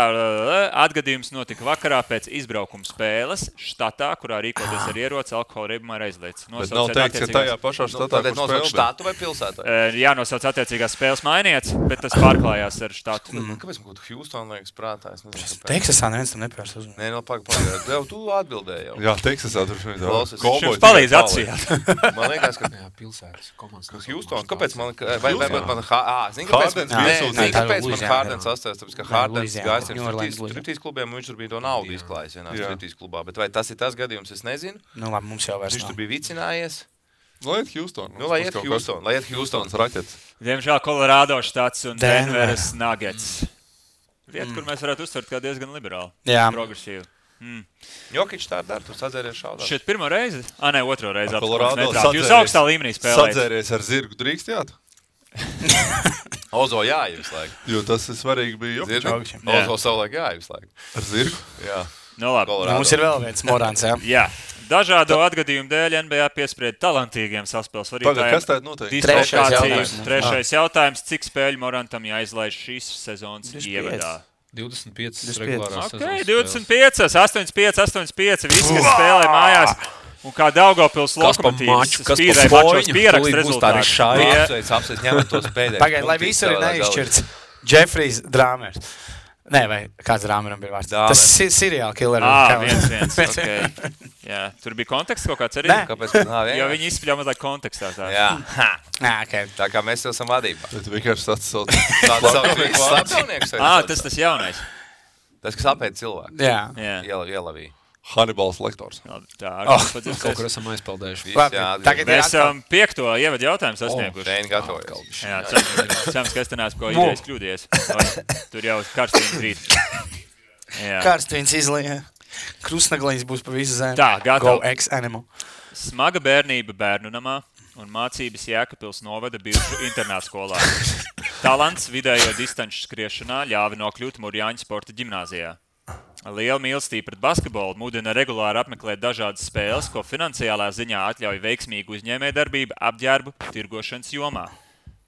Atgadījums notika vakarā pēc izbraukuma spēles štatā, kurā rīkoties ar ieroci alkohola reibumā ir aizliegts. Bet nav teikts, ka tajā pašā štatā, kur spēlē. Štatu vai pilsētu? Jānosauc attiecīgās spēles mainietis, bet tas pārklājās ar štatu. Kāpēc man kaut Houston liekas prātā? Teksasā neviens tam nepērs uzmanīt. Nē, no pagaidām. Jau tu atbildēji jau. Jā, Teksasā tur šeit. Viņš palīdz atsījāt. Man liekas, ka... Jā, pilsētas komandas. Houston, kāpēc man... Zini, kāpēc man Hārdens astājas, tāpēc, ka Hārdens gājis ar striptīs klubiem, un viņš tur bija to naudu izklājis vienā striptīs klubā. Bet vai tas ir tas gadījums, es nezinu. Nu labi, mums jau vairs viņš tur bija vicinājies. Lai iet Houston. Lai iet Houstons raķets. Diemžēl Colorado štats un Denveras Nuggets. Vieta, kur mēs varētu uztvert kā diezgan liberāli. Jā. Progresīvi. Jokič tā dara, tu sadzēries šādā. Šeit pirmo reizi? Nē, otro reizi. Jūs augstā līmenī spēlējat. Sadzēries ar zirgu drīkstjāt? Ozo jāja visu laiku. Jo tas ir svarīgi bija Jokičam. Ozo savulaik jāja visu laiku. Ar zirgu? Jā. Nu labi. Mums ir vēl viens Morants, jā? Jā. Dažādo atgadījumu dēļ NBA piesprieda talantīgiem saspēles vadītājiem. Kas tāda noteikti? Trešais jautājums. Cik spēļu Morantam jāizlaiž šīs sezonas ievadā? 25 regulārās sezonas. 25, 85. Visi, kas spēlē mājās. Un kā Daugavpils Lokomotīvs spīdēja mačos pierakst rezultātu. Apsveic, ņemat tos pēdējos. Pagaid, lai visur ir neizšķirts Jeffrijs Drāmers. Nē, vai kāds Rāmeram bija vārds? Dāmer. Tas ir seriāla killer. Viens. Okay. Jā, tur bija konteksts kaut kāds arī. Nē. Kāpēc? Jo viņi izspļāva mazliet kontekstā. Jā. Okay. Tā kā mēs esam vadībā. Bet vienkārši tāds slapjonieks. Tas jaunais. Tas, kas apēd cilvēku. Jā. Ielavīja. Hannibals Lektors. Tā kaut kur esam aizpeldējuši. Mēs esam 5. ievadu jautājumu sasnieguši. Reini gatavojas. Jā, cerams, ka es te neesmu ko idejas kļūdies. Tur jau karstījums rīt. Karstījums izlīja. Krustnaglīs būs pa visu zemi. Tā, gatavi. Go ex-animal. Smaga bērnība bērnu namā un mācības Jēkabpils novada bijušu internātskolā. Talants vidējo distanču skriešanā ļāva nokļūt Murjāņu sporta ģimnāzijā. Liela mīlestība pret basketbolu mudina regulāri apmeklēt dažādas spēles, ko finansiālā ziņā atļauj veiksmīgu uzņēmējdarbību apģērbu tirgošanas jomā.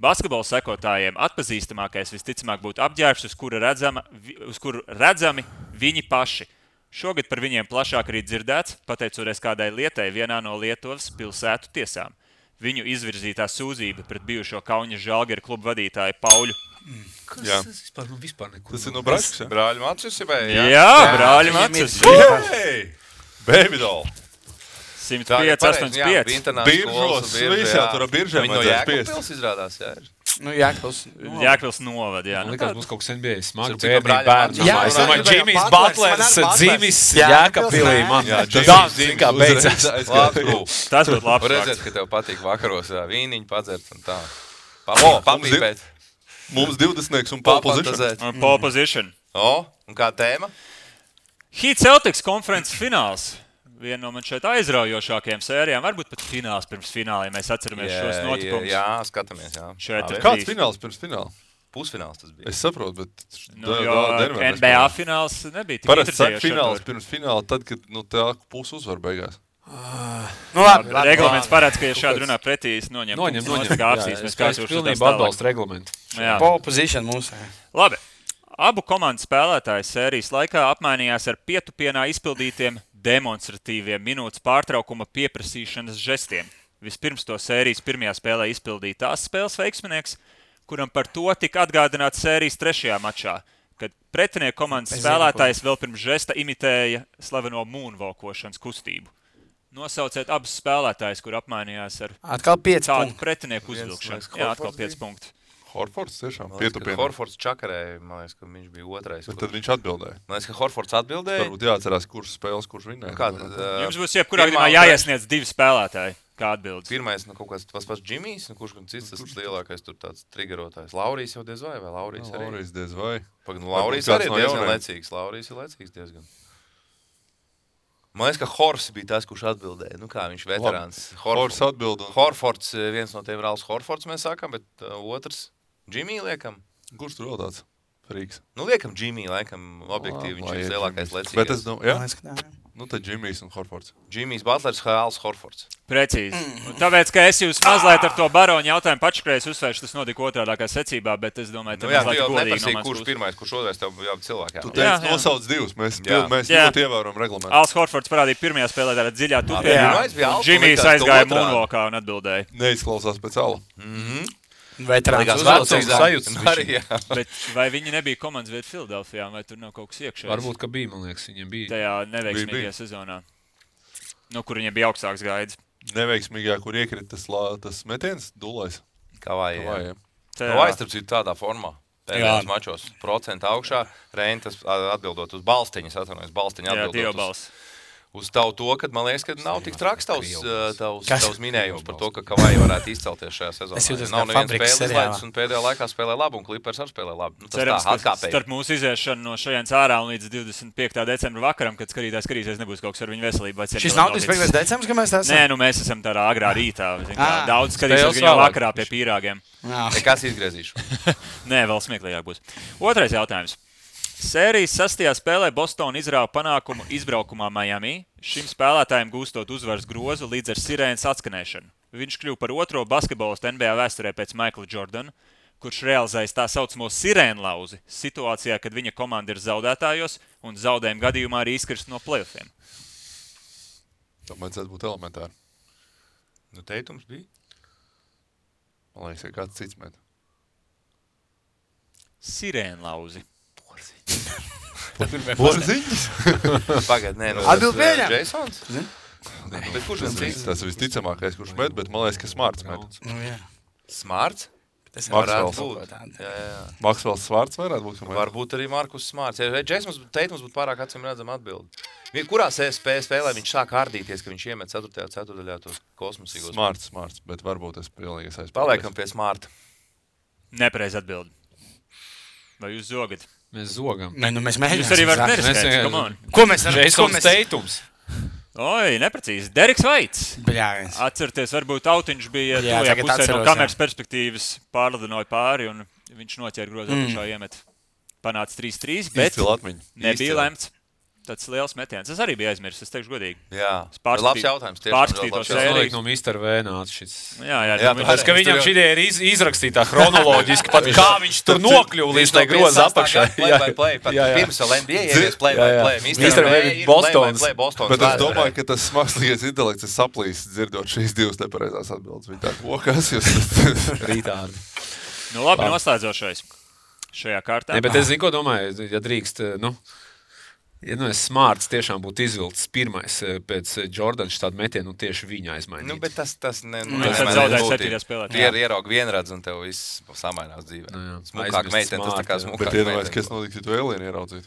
Basketbola sekotājiem atpazīstamākais visticamāk būtu apģērbs, uz kuru redzami viņi paši. Šogad par viņiem plašāk arī dzirdēts, pateicoties kādai lietai vienā no Lietuvas pilsētu tiesām. Viņu izvirzītā sūdzība pret bijušo Kauņa Žalgiru klubu vadītāju Pauļu. Tas vispār nekur. Tas ir no Braškas, ja? Brāļu Macis, Jā, brāļu Macis. Baby doll. 105, 85. Biržos, visā tur biržēm Viņi no Jēkabpils izrādās, jā. Jēkabpils novad, jā. Man liekas, būs kaut kas NBA smaga Cik bērnība brāļi bērnu. Es domāju, Džimijs Butlers dzīvis Jēkabpilī. Man Džimijs kā beidzās. Tas būtu labs redzēt, fakts. ka tev patīk vakaros vīniņu padzert un tā. Papīpēt. Mums 20 un pole position. Un pole position. Un kā tēma? Heat Celtics konferences fināls. Viena no man šeit aizraujošākajām sērijām. Varbūt pat fināls pirms fināliem. Mēs atceramies šos notikumus. Jā, skatāmies, jā. Kāds fināls pirms fināla? Pusfināls tas bija. Es saprotu, bet... NBA fināls nebija tik parasti saka interesējoši. fināls pirms fināla, tad, kad tā pusi uzvar beigās. Reglaments parāds, ka ja šādi runā pretī, es noņem. Es pilnībā atbalstu reglamentu. Pole position mūsu. Labi. Abu komandu spēlētāji sērijas laikā apmainījās ar pietupienā izpildītiem demonstratīviem minūtes pārtraukuma pieprasīšanas žestiem. Vispirms to sērijas pirmajā spēlē izpildīja tās spēles veiksminieks, kuram par to tika atgādināts sērijas 3. mačā, kad pretinieku komandas spēlētājs vēl pirms žesta imitēja slaveno moonwalkošanas kustību. Nosauciet abus spēlētājus, kur apmainījās ar tādu pretinieku uzvilkšanu. Jā, atkal 5 punkti. Horfords tiešām pietupienā. Horfords čakarēja, man liekas, ka viņš bija otrais. Bet tad viņš atbildēja. Man liekas, ka Horfords atbildēja. Varbūt jāatcerās, kurš spēles, kurš vinnēja. Jums būs jebkurā gadījumā jāiesniedz 2 spēlētāji. Kā atbildes? Pirmais, kaut kāds pats Džimijs, kurš cits tas lielākais tur tāds triggerotājs. Laurijs jau diez vai Laurijs arī? Laurijs diez vai. Laurijs arī ir diezgan lecīgs. Laurijs ir lecīgs diezgan. Man liekas, ka Hors bija tas, kurš atbildēja. Nu kā viņš veterāns. Hors atbild. Horfords, viens no tiem Rāls Horfords mēs sākam, bet otrs Džimī liekam. Kurš tur vēl tāds? Frīks. Nu liekam Džimī, laikam objektīvi viņš ir lielākais lecīgais. Bet es jā. Nu tad Džimijs un Horfords. Džimijs Butlers, Hāls Horfords. Precīzi. Tāpēc, ka es jūs mazliet ar to baronu jautājumu pačakrējis uzsvēršu, tas notika otrādākā secībā, bet es domāju, tā mazliet godīgi no mans puses. Kurš pirmais, kurš otrais, tev jābūt cilvēkiem. Tu teici nosauc 2, mēs ļoti ievērojam reglamentu. Hāls Horfords parādīja pirmajā spēlē tādā dziļā tupienā. Džimijs aizgāja moonwalkā un atbildēja. Neizklausās pēc ala. Veterāns uzvalcīgs. Bet vai viņi nebija komandas vieta Filadelfijā, vai tur nav kaut kas iekšējs? Varbūt, ka bija, man liekas, viņiem bija. Tajā neveiksmīgajā sezonā, kur viņiem bija augstāks gaids. Neveiksmīgajā, kur iekrita tas metiens, dulais. Kavājiem. Kavājs, starp citu, tādā formā. Pēdējos mačos procenta augšā. Reini tas atbildot uz balstiņas, atvainojas balstiņa atbildot uz tavu to, kad man liekas, ka nav tik traks tavs minējums par to, ka Kavai varētu izcelties šajā sezonā. Nav neviens spēles izlaidis un pēdējā laikā spēlē labi un Clippers arī spēlē labi. Nu, cerams, ka starp mūsu iziešanu no šajienas ārā un līdz 25. decembra vakaram, kad skatīsies, nebūs kaut kas ar viņu veselību. Šis nav 25. decembris, ka mēs tā esam? Nē, nu mēs esam tādā agrā rītā. Daudz skatīsies viņu vakarā pie pīrāgiem. Kas izgriezīšu? Nē, vēl smieklīgāk būs. Otrais jautājums. Sērijas 6. spēlē Bostona izrāva panākumu izbraukumā Miami, šim spēlētājiem gūstot uzvaras grozu līdz ar sirēnas atskanēšanu. Viņš kļuva par otro basketbolistu NBA vēsturē pēc Michaela Jordana, kurš realizējas tā saucamo sirēnlauzi situācijā, kad viņa komanda ir zaudētājos un zaudējuma gadījumā arī izkrist no playoffiem. Tā vajadzētu būt elementāri. Nu, teikums bija? Man liekas, ka kāds cits met. Sirēnlauzi. Porziņas? Pagaid, nē, Atbild pieņem. Jasons? Bet kurš gan cits? Tas visticamākais, kurš met, bet man liekas, ka Smarts met. Smarts? Tas Maxwells. Jā. Maksvels Smarts varētu būt. Varbūt arī Markus Smarts. Ja Jasons Teitums būtu pārāk acīm redzama atbildi. Kurā spēlē viņš sāk ārdīties, ka viņš iemet 4. ceturdaļā tos kosmosīgos? Smarts, bet varbūt es pilnīgi aizpildīju. Paliekam pie Smarta. Nepareiz atbildi. Vai jūs zogat? Mēs zogam. Nē, nu mēs mēģinām. Jūs arī varat neriskēt, come on. Ko mēs varam? Jasons Teitums. Oi, neprecīzi. Deriks Vaits. Bļāviens. Atcerieties, varbūt autiņš bija Jā, tuvajā tagad pusē no atceros, kameras perspektīvas pārlidinoja pāri, un viņš noķēra grozu apakšā iemet. Panāca 3-3, bet Īsti Latviņu. nebija lemts. Tāds liels metiens. Es arī biju aizmirsis, es teikšu godīgi. Jā, Pārskatīt- labs jautājums. pārskatīt to Tas sēriju. notiek no Mr. V nāca šis. Jā, Tas, ka viņam šī ideja ir izrakstītā chronoloģiski, pat kā viņš tur nokļuva līdz tai groza apakšai. Pirms vēl NBA ievies play. Mr. V ir Bostons. Bet es domāju, ka tas mākslīgais intelekts ir saplīsis dzirdot šīs divas nepareizās atbildes. Viņi tā kokas, jūs Rītādi. Nu labi, noslēdzošais šajā kārtā. Ne, bet es zinu, ko domāju, ja drīkst, ja es Smarts tiešām būtu izvilcis pirmais pēc Jordana tādu metienu, tieši viņa aizmainīt. Nu, bet tas Viņš tad zaudēja 7. spēlē. Tu ieraugi vienredz un tev viss samainās dzīvē. Smukāk meitene, tas tā kā smukāk Bet iedomājies, kas notiks, ja tu Elienu ieraudzītu.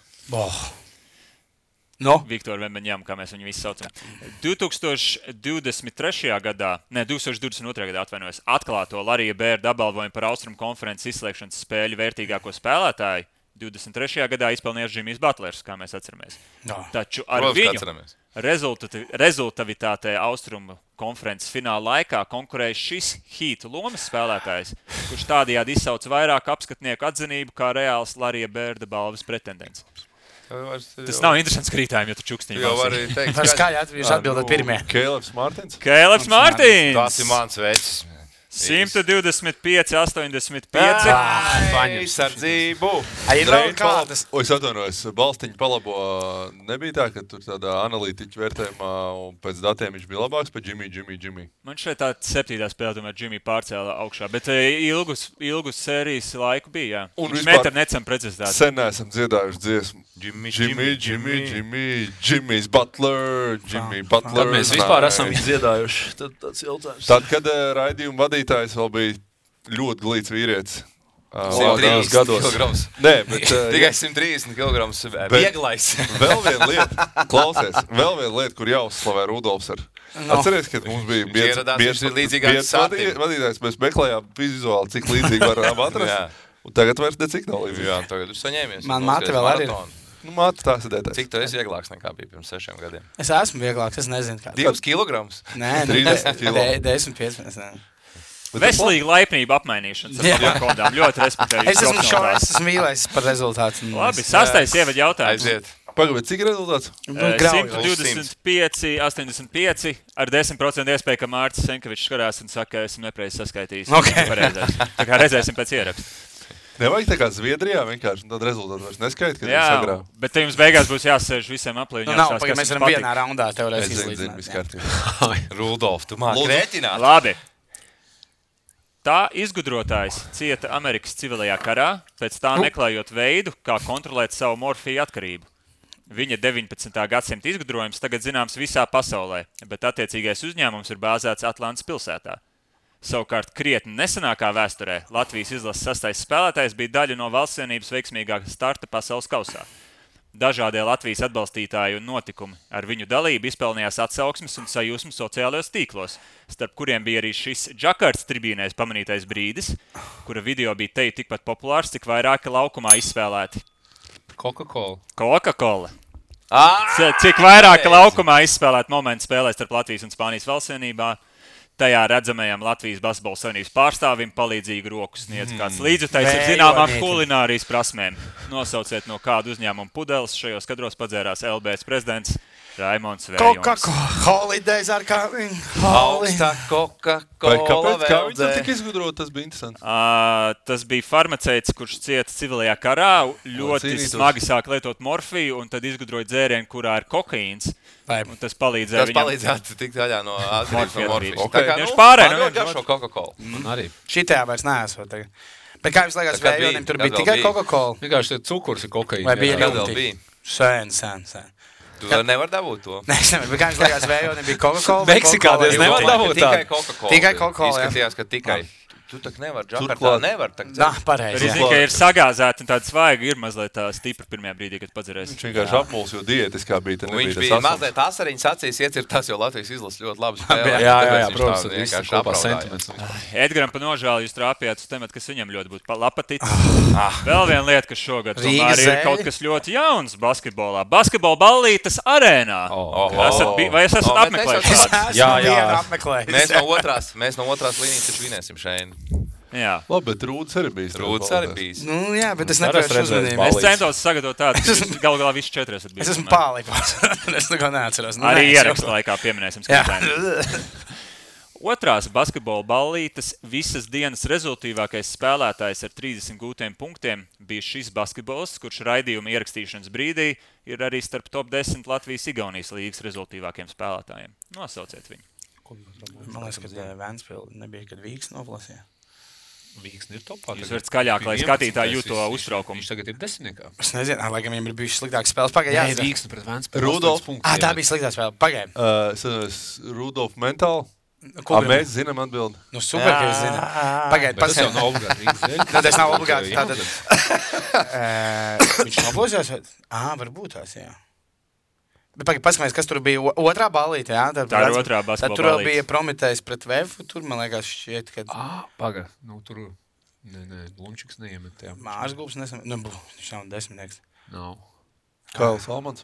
No? Viktoru Vembeņām, kā mēs viņu visi saucam. 2022. gadā, ne, 2022. gadā atvainojos, atklāto Larija Bērda apbalvojumu par Austrumu konferences izslēgšanas spēļu vērtīgāko spēlētāju 23. gadā izpelnījās Jimmijs Butlers, kā mēs atceramies. No. Taču ar viņu rezultavitātē Austrumu konferences fināla laikā konkurēja šis Heat lomas spēlētājs, kurš tādējādi izsauca vairāk apskatnieku atzinību kā reāls Larija Bērda balvas pretendents. Tas nav interesants krītājums, ja tu čukstiņi jau var teikt. Var skaļi atbildēt pirmie. Kēleps Mārtins? Kēleps Mārtins! Tas ir mans vecs. 125, 85. Sardzību. Ir vēl kādas. O, es atvainojos, Balstiņu palabo nebija tā, ka tur tādā analītiķu vērtējumā un pēc datiem viņš bija labāks par Jimmy. Man šeit tā 7. spēle tomēr Jimmy pārcēla augšā, bet ilgus sērijas laiku bija, jā. Un Viņš vispār met ar necam precizitāti. sen neesam dziedājuši dziesmu. Jimmy's Butler. Tad mēs vispār esam viņu dziedājuši. Tad tāds jautājums. Tad, kad raidījuma vadītājs vēl bija ļoti glīts vīrietis. 130 kilograms. Nē, bet Tikai 130 kilograms vieglais. vēl viena lieta, klausies, kur jāuzslavē Rudolfs ar. Atceries, kad mums bija Ieradās līdzīgāks sātiem. vadītājs, mēs meklējām vizuāli, cik līdzīgi varam atrast. Un tagad vairs necik nav līdzīgi. Jā, tagad jūs saņēmies. Man māte vēl arī ir. Nu, māte tās ir dētājs. Cik tu esi vieglāks nekā bija pirms 6 gadiem? Es esmu vieglāks, es nezinu kā. 2 kilograms? Nē, 30 kilo. 10, 15. Veselīga laipnība apmainīšanas ar tādām kodām. Ļoti respektēju. Es esmu šaurās, es esmu mīlējis par rezultātu. Labi, 6. ievada jautājums. Aiziet. Pagaid, cik ir rezultāts? 125, 85 ar 10% iespēju, ka Mārcis Senkevičs skarās un saka, ka esmu nepareizi saskaitījis. Pareizais. Tā kā redzēsim pēc ieraksta. Nevajag tā kā Zviedrijā vienkārši, un tad rezultātu vairs neskaita, kad Jā, viņi sagrāv. bet te jums beigās būs jāsēž visiem aplī. Nu, nav, pagaid, mēs varam vienā raundā teorēs Es zinu, izlīdzināt. viss kārtībā. Rudolf, tu māki rēķināt? Labi. Tā izgudrotājs cieta Amerikas civilajā karā, pēc tā meklējot veidu, kā kontrolēt savu morfiju atkarību. Viņa 19. gadsimta izgudrojums tagad zināms visā pasaulē, bet attiecīgais uzņēmums ir bāzēts Atlantas pilsētā. Savukārt krietni nesenākā vēsturē Latvijas izlases 6. spēlētājs bija daļa no valstsienības veiksmīgākā starta pasaules kausā. Dažādie Latvijas atbalstītāji un notikumi ar viņu dalību izpelnījās atsauksmes un sajūsmu sociālajos tīklos, starp kuriem bija arī šis Džakartas tribīnēs pamanītais brīdis, kura video bija teju tikpat populārs, cik vairāki laukumā izspēlēti. Coca-Cola. Cik vairāki laukumā izspēlēti momenti spēlē starp Latvijas un Spānijas valstsienībā. Tajā redzamajam Latvijas basketbola savienības pārstāvim palīdzīgu roku sniedz kāds līdzekļs ar zināmām kulinārijas prasmēm. Nosauciet, no kādu uzņēmumu pudeles šajos kadros padzērās LBS prezidents Raimons Vējons. Coca-Cola, holidays are coming. Augstā Coca-Cola Kā viņi tam tik izgudrot, tas bija interesanti. Tas bija farmaceits, kurš cieta civilajā karā, ļoti cīnītos. smagi sāk lietot morfiju un tad izgudroja dzērienu, kurā ir kokaīns. Un tas palīdzēja Tas viņam. palīdzētu tikt vaļā no atkarības no morfijas. Okay. Viņš pārēja, Man ļoti garšo Coca-Cola. Arī. Šitajā vairs neesot tagad. Bet kā jums liekas, Vējonim tur bija tikai Coca-Cola? Vienkārši cukurs ir kokaīns. Vai bija Vēl bija. Sen. Tu vēl nevar dabūt to. Nē, es nevaru. Bet kā jums liekas, Vējonim bija Coca-Cola? Meksikā diez nevar dabūt Tikai Coca-Cola. Tikai Coca-Cola, jā. Izskatījās, ka tikai. Tu tak nevar, Džakartā nevar. Pareizi. Arī zinu, ka ir sagāzēta un tāda svaiga ir mazliet tā stipra pirmajā brīdī, kad padzerēs. Viņš vienkārši apmuls, jo diētiskā bija. Viņš bija mazliet asariņas acīs iecirtās, jo Latvijas izlases ļoti labi spēlē. Jā, protams, tas vienkārši kopā sentiments. Edgaram pa nožēlu jūs trāpījāt uz tematu, kas viņam ļoti būtu lapaticis. Vēl viena lieta, kas šogad tomēr ir kaut kas ļoti jauns basketbolā. Basketbola ballītes arēnā. Vai es esat apmeklējis? Jā. Mēs no otrās līnijas taču vinēsim šeit. Jā. Labi, bet Rūds arī bijis. Nu, jā, bet es nepēršu uzmanību. Es centos sagatavot tādu, ka galu galā visi 4 esat bijis. Es esmu pārlīpās. Es neko neatceros. Arī ierakstu laikā pieminēsim skatītājiem. Otrās basketbola ballītes visas dienas rezultīvākais spēlētājs ar 30 gūtiem punktiem bija šis basketbolists, kurš raidījuma ierakstīšanas brīdī ir arī starp top 10 Latvijas-Igaunijas līgas rezultīvākiem spēlētājiem. Nosauciet viņu. Man liekas, ka Vēnspils nebija, kad Vīks noplasīja. Vīksni ir topā. Jūs varat skaļāk, lai skatītāji jūto uztraukumu. Viņš tagad ir 10. Es nezinu, laikam viņam ir bijušas sliktākas spēles. Pagaid, Vīksni pret Vēnspils. Rudolf. Tā bija sliktā spēle. Pagaid. Rudolf mentāli. Mēs zinām atbildi. Nu, super, ka jūs zināt. Pagaid, Tas jau nav obligāti. Tas nav obligāti. Viņš noplasījās? Varbūt tās, jā. Bet pagaid, paskamies, kas tur bija otrā ballīte, jā? Tā ir otrā basketbola ballīte. Tad tur bija Prometējs pret Vefu, tur, man liekas, šķiet, ka... Paga, nu tur... Nē, Blumčiks neiemet, jā. Mārs Gulbs nesamet, nu, viņš nav 10. Nav. Kails Almans.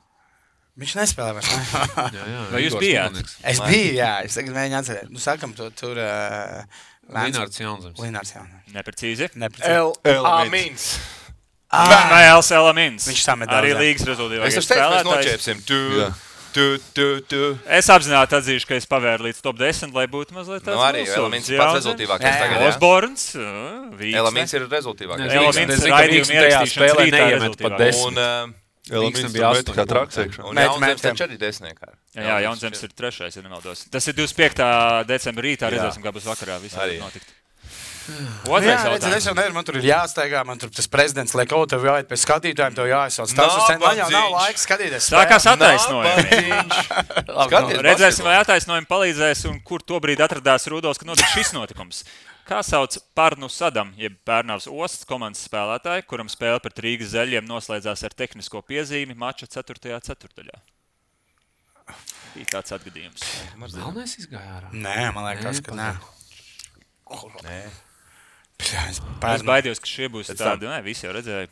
Viņš nespēlē vairs, ne? Jā. Vai jūs bijāt? Es biju, jā, es tagad mēģinu atcerēt. Nu, sākam tur... Linārds Jaunzems. Neprecīzi. Amins. Vai Elamins. Viņš samet daudz. Arī līgas rezultīvākais Es teicu, mēs spēlētājs. noķēpsim. Es apzināti atzīšu, ka es pavēru līdz top 10, lai būtu mazliet tāds Nu arī Elamins ir pats rezultīvākais tagad, jā? Osborns, Vīksne. Elamins ir rezultīvākais. Elamins ir raidījuma ierakstīšanas rītā rezultīvākais. Un Elamins bija 8. kā traks iekšā. Un Jaunzems taču arī 10. Jā, Jaunzems ir 3. ja nemaldos. Tas ir 25. decembra rītā, redzēsim, kā būs vakarā. Viss var notikt. Otrais jautājums. Es jau nevaru, man tur ir jāsteigā, man tur tas prezidents liek, tev jāiet pēc skatītājiem, tev jāizsauc. Man jau nav laiks skatīties. Sākās attaisnojumi. Redzēsim, vai attaisnojumi palīdzēs un kur tobrīd atradās Rudolfs, kad notika šis notikums. Kā sauc Parnu Sadam, jeb Pērnavas Ostas komandas spēlētāju, kuram spēle pret Rīgas Zeļiem noslēdzās ar tehnisko piezīmi mača 4. ceturtdaļā? Bija tāds atgadījums. Melnais izgāja ārā. Nē, man liekas, ka nē. Nē. Es baidījos, ka šie būs tādi, visi jau redzēja.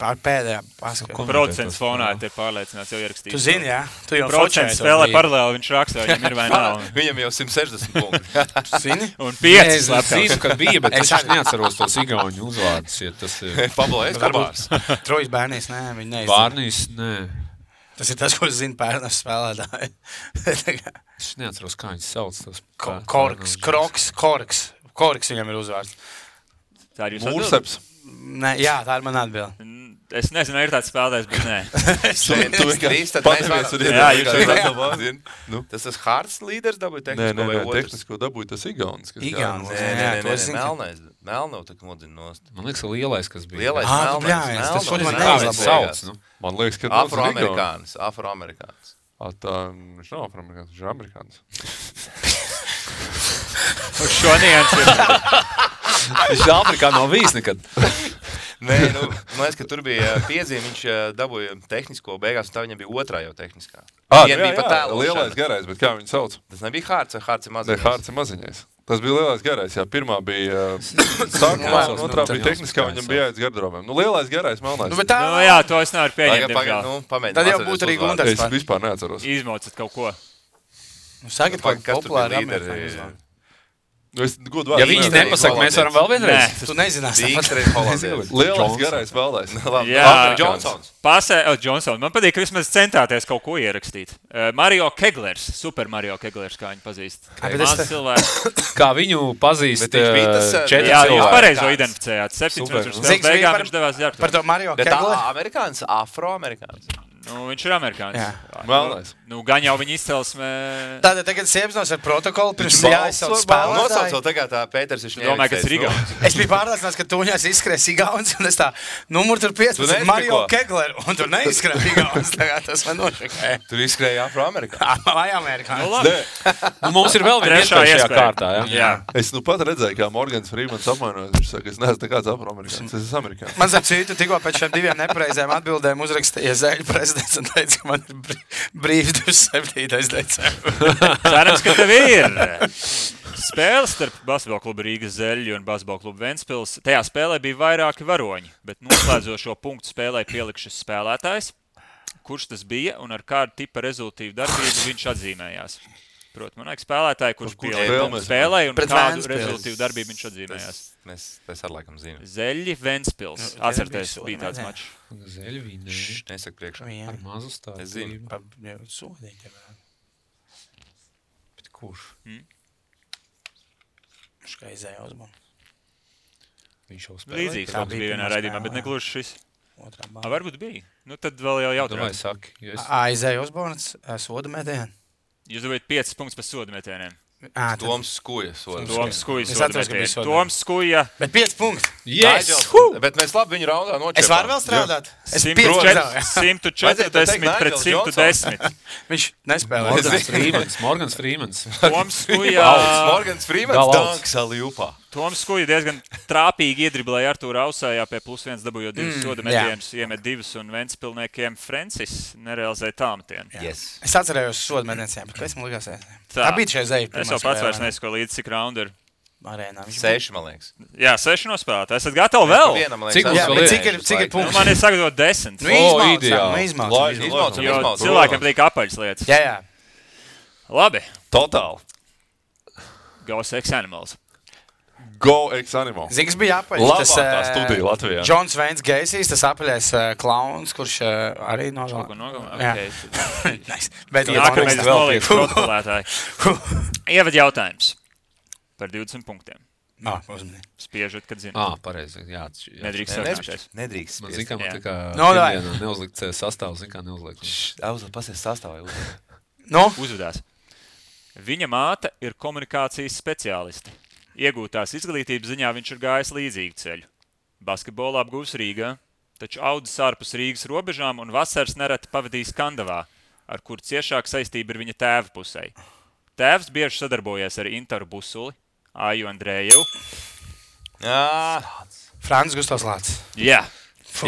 Pēdējā paskatā. Procents fonā te pārliecināts jau ierakstīt. Tu zini, jā? Tu jau procents spēlē paralēli, viņš raksta, viņam ir vai nav. Viņam jau 160 punkti. Tu zini? Un 5 Es zinu, ka bija, bet es neatceros tos igauņu uzvārdus, ja tas ir... Pablo Eskobārs. Trojas Bērnīs, nē, viņi neizdzina. Bārnīs, nē. Tas ir tas, ko zina Pērnavas spēlētāji. Es neatceros, kā viņas sauc. Korks viņam ir uzvārds. Tā ir jūs Mūrseps. Nē, jā, tā ir man atbilde. Es nezinu, vai ir tāds spēlētājs, bet nē. Tu vienkārši pateicies un Jā, jūs jau zini. Tas tas Hārts līderis dabūja tehnisko vai otrs? Tehnisko dabūja tas Igaunis. Igaunis. Nē, Melnau tak modina nost. Man liekas, lielais, kas bija. Lielais Melnais. Tas Melnais. man Kā viņš sauc, nu? Man liekas, ka Afroamerikāns. Tā viņš nav afroamerikāns, viņš ir amerikāns. Uz šo niansu ir. Viņš Āfrikā nav bijis nekad. Nē, man liekas, ka tur bija piezīme, viņš dabūja tehnisko beigās, un tā viņam bija otrā jau tehniskā. Viena bija pat tēlošana. Lielais garais, bet kā viņu sauc? Tas nebija Hārts, vai Hārts ir maziņais? Ne, Hārts ir maziņais. Tas bija lielais garais, jā. Pirmā bija sākumā, un otrā bija tehniskā, viņam bija jāiet garderobēm. Nu, lielais garais, melnais. Nu jā, to es nevaru pieņemt, diemžēl. Tad jau būtu arī Gunters. Es vispār neatceros. Izmaucat kaut ko. Sakiet, Kas tur bija populāri līderi? amerikāņi. Ja viņi nepasaka, mēs varam vēl vienreiz. Tu nezināsi. Dīkstreiz Holandieris. Lielais garais vēlais. Jā, Johnsons. Johnson. Man patīk, ka vismaz centāties kaut ko ierakstīt. Mario Keglers, Super Mario Keglers, kā viņu pazīst. Mans cilvēks. Kā viņu pazīst Bet viņš bija tas, 4 Jā, jūs cilvēki. pareizo identificējāt. 7 minūtes spēles beigām viņš devās ģērbtuvē. Par to Mario Bet Kegleru. amerikāns, afroamerikāns. Nu, viņš ir amerikānis. Melnais. Nu, gan jau viņa izcelsme. Tātad tagad Siepsnos ar protokolu pirms jāizsauc spēlētāji. Nosauc vēl tagad tā Pēters viņš domāju, ka tas ir Igauns. Es biju pārliecināts, ka tuņās izskries Igauns, un es tā, numur tur 15, Mario Kegler, un tur neizskrēja Igauns, tagad tas man nošakēja. Tur izskrēja Afroamerikā. Vai amerikānis? Nu, labi. Nu, mums ir vēl viena iespēja šajā kārtā. Jā. Es nu pat redzēju, kā Morgans Freemans apmainojās. Viņš saka, es neesmu nekāds afroamerikāns, es esmu amerikāns. Man zem citu tikko pēc šiem 2 nepareizēm atbildēm uzrakstīja Zeļu prezidents un teica, ka man ir brīvs 27. decembris. Cerams, ka tev ir. Spēle starp basketbola klubu Rīgas Zeļu un basketbola klubu Ventspils. Tajā spēlē bija vairāki varoņi, bet noslēdzošo punktu spēlē pielikšas spēlētājs. Kurš tas bija un ar kādu tipa rezultīvu darbību viņš atzīmējās? Protams, man liekas spēlētāji, kurš pielika spēlē un kādu rezultīvu darbību viņš atzīmējās. Es ar laikam zinu. Zeļi Ventspils. Atcerieties, bija tāds mačs. Zeļi vinēja. Nesaka priekšā. Ar mazu stāstu. Es zinu. Sodīt tev. Bet kurš? Viņš kā izēja uzbunu. Viņš jau spēlēja. Līdzīgs kaut kas bija vienā raidījumā, bet negluži šis. Otrā bāla. Varbūt bija. Nu tad vēl jau Vai jautājums. saki? Jo es- Izēja uzbunas, soda metienu. Jūs dabūjāt 5 punktus pēc soda metieniem. Toms Skuja. Toms Skuja Es soda atceros, ka bija metienu. soda. Toms Skuja. Bet 5 punkti. Yes! Bet mēs labi viņu raundā nočēpām. Es varu vēl strādāt. Es 140 Vajadzēja pret 110. Viņš nespēlē. Morgans Freemans. Toms Skuja. Morgans Freemans Galavs. danks Aljupā. Toms Skuja diezgan trāpīgi iedriblēja Artūru Ausējā pie +1 dabūjot 2 soda metienus, iemet 2 un Ventspilniekiem Francis nerealizēja tālmetienu. Yes. Es atcerējos soda metieniem, bet kas man likās? Tā bija šeit zeja. Es jau pats vairs nesaku līdz cik raundu ir. Arēnā. 6, man liekas. Jā, 6 nospēlētāji. Esat gatavi vēl? Vienam, man Cik liekas, mums Jā, vēl bet ir? cik ir Nu, punkts? man ir sagatavot 10. Izmaucam. Jo cilvēkiem patīk apaļas lietas. Jā. Labi. Totāli. Go Sex Animals. Go ex-animal. Zini, kas bija apaļs? Labākā studija Latvijā. Džons Veins Geisijs, tas apaļais klauns, kurš arī Kaut ko nogalināja. nogalināja. Nice. Bet Nākamais jā, nolīgs protokолētāji. Ievad jautājums par 20 punktiem. uzmanīgi. Spiežot, kad zinu. Pareizi. Jā, Nedrīkst sarunāties. Nedrīkst. Man zina, ka man Jā. tā kā No, davai. pirmdienā neuzlikt sastāvu, zina, kā neuzlikt. Auzla, pasies sastāvā. Nu, Uzvedās. Viņa māte ir komunikācijas speciāliste. Iegūtās izglītības ziņā viņš ir gājis līdzīgu ceļu. Basketbolu apgūs Rīgā, taču audzis ārpus Rīgas robežām un vasaras nereti pavadījis Kandavā, ar kur ciešāk saistība ir viņa tēva pusē. Tēvs bieži sadarbojies ar Intaru Busuli, Aju Andrējevu. Frāns Gustavs Lācis. Jā.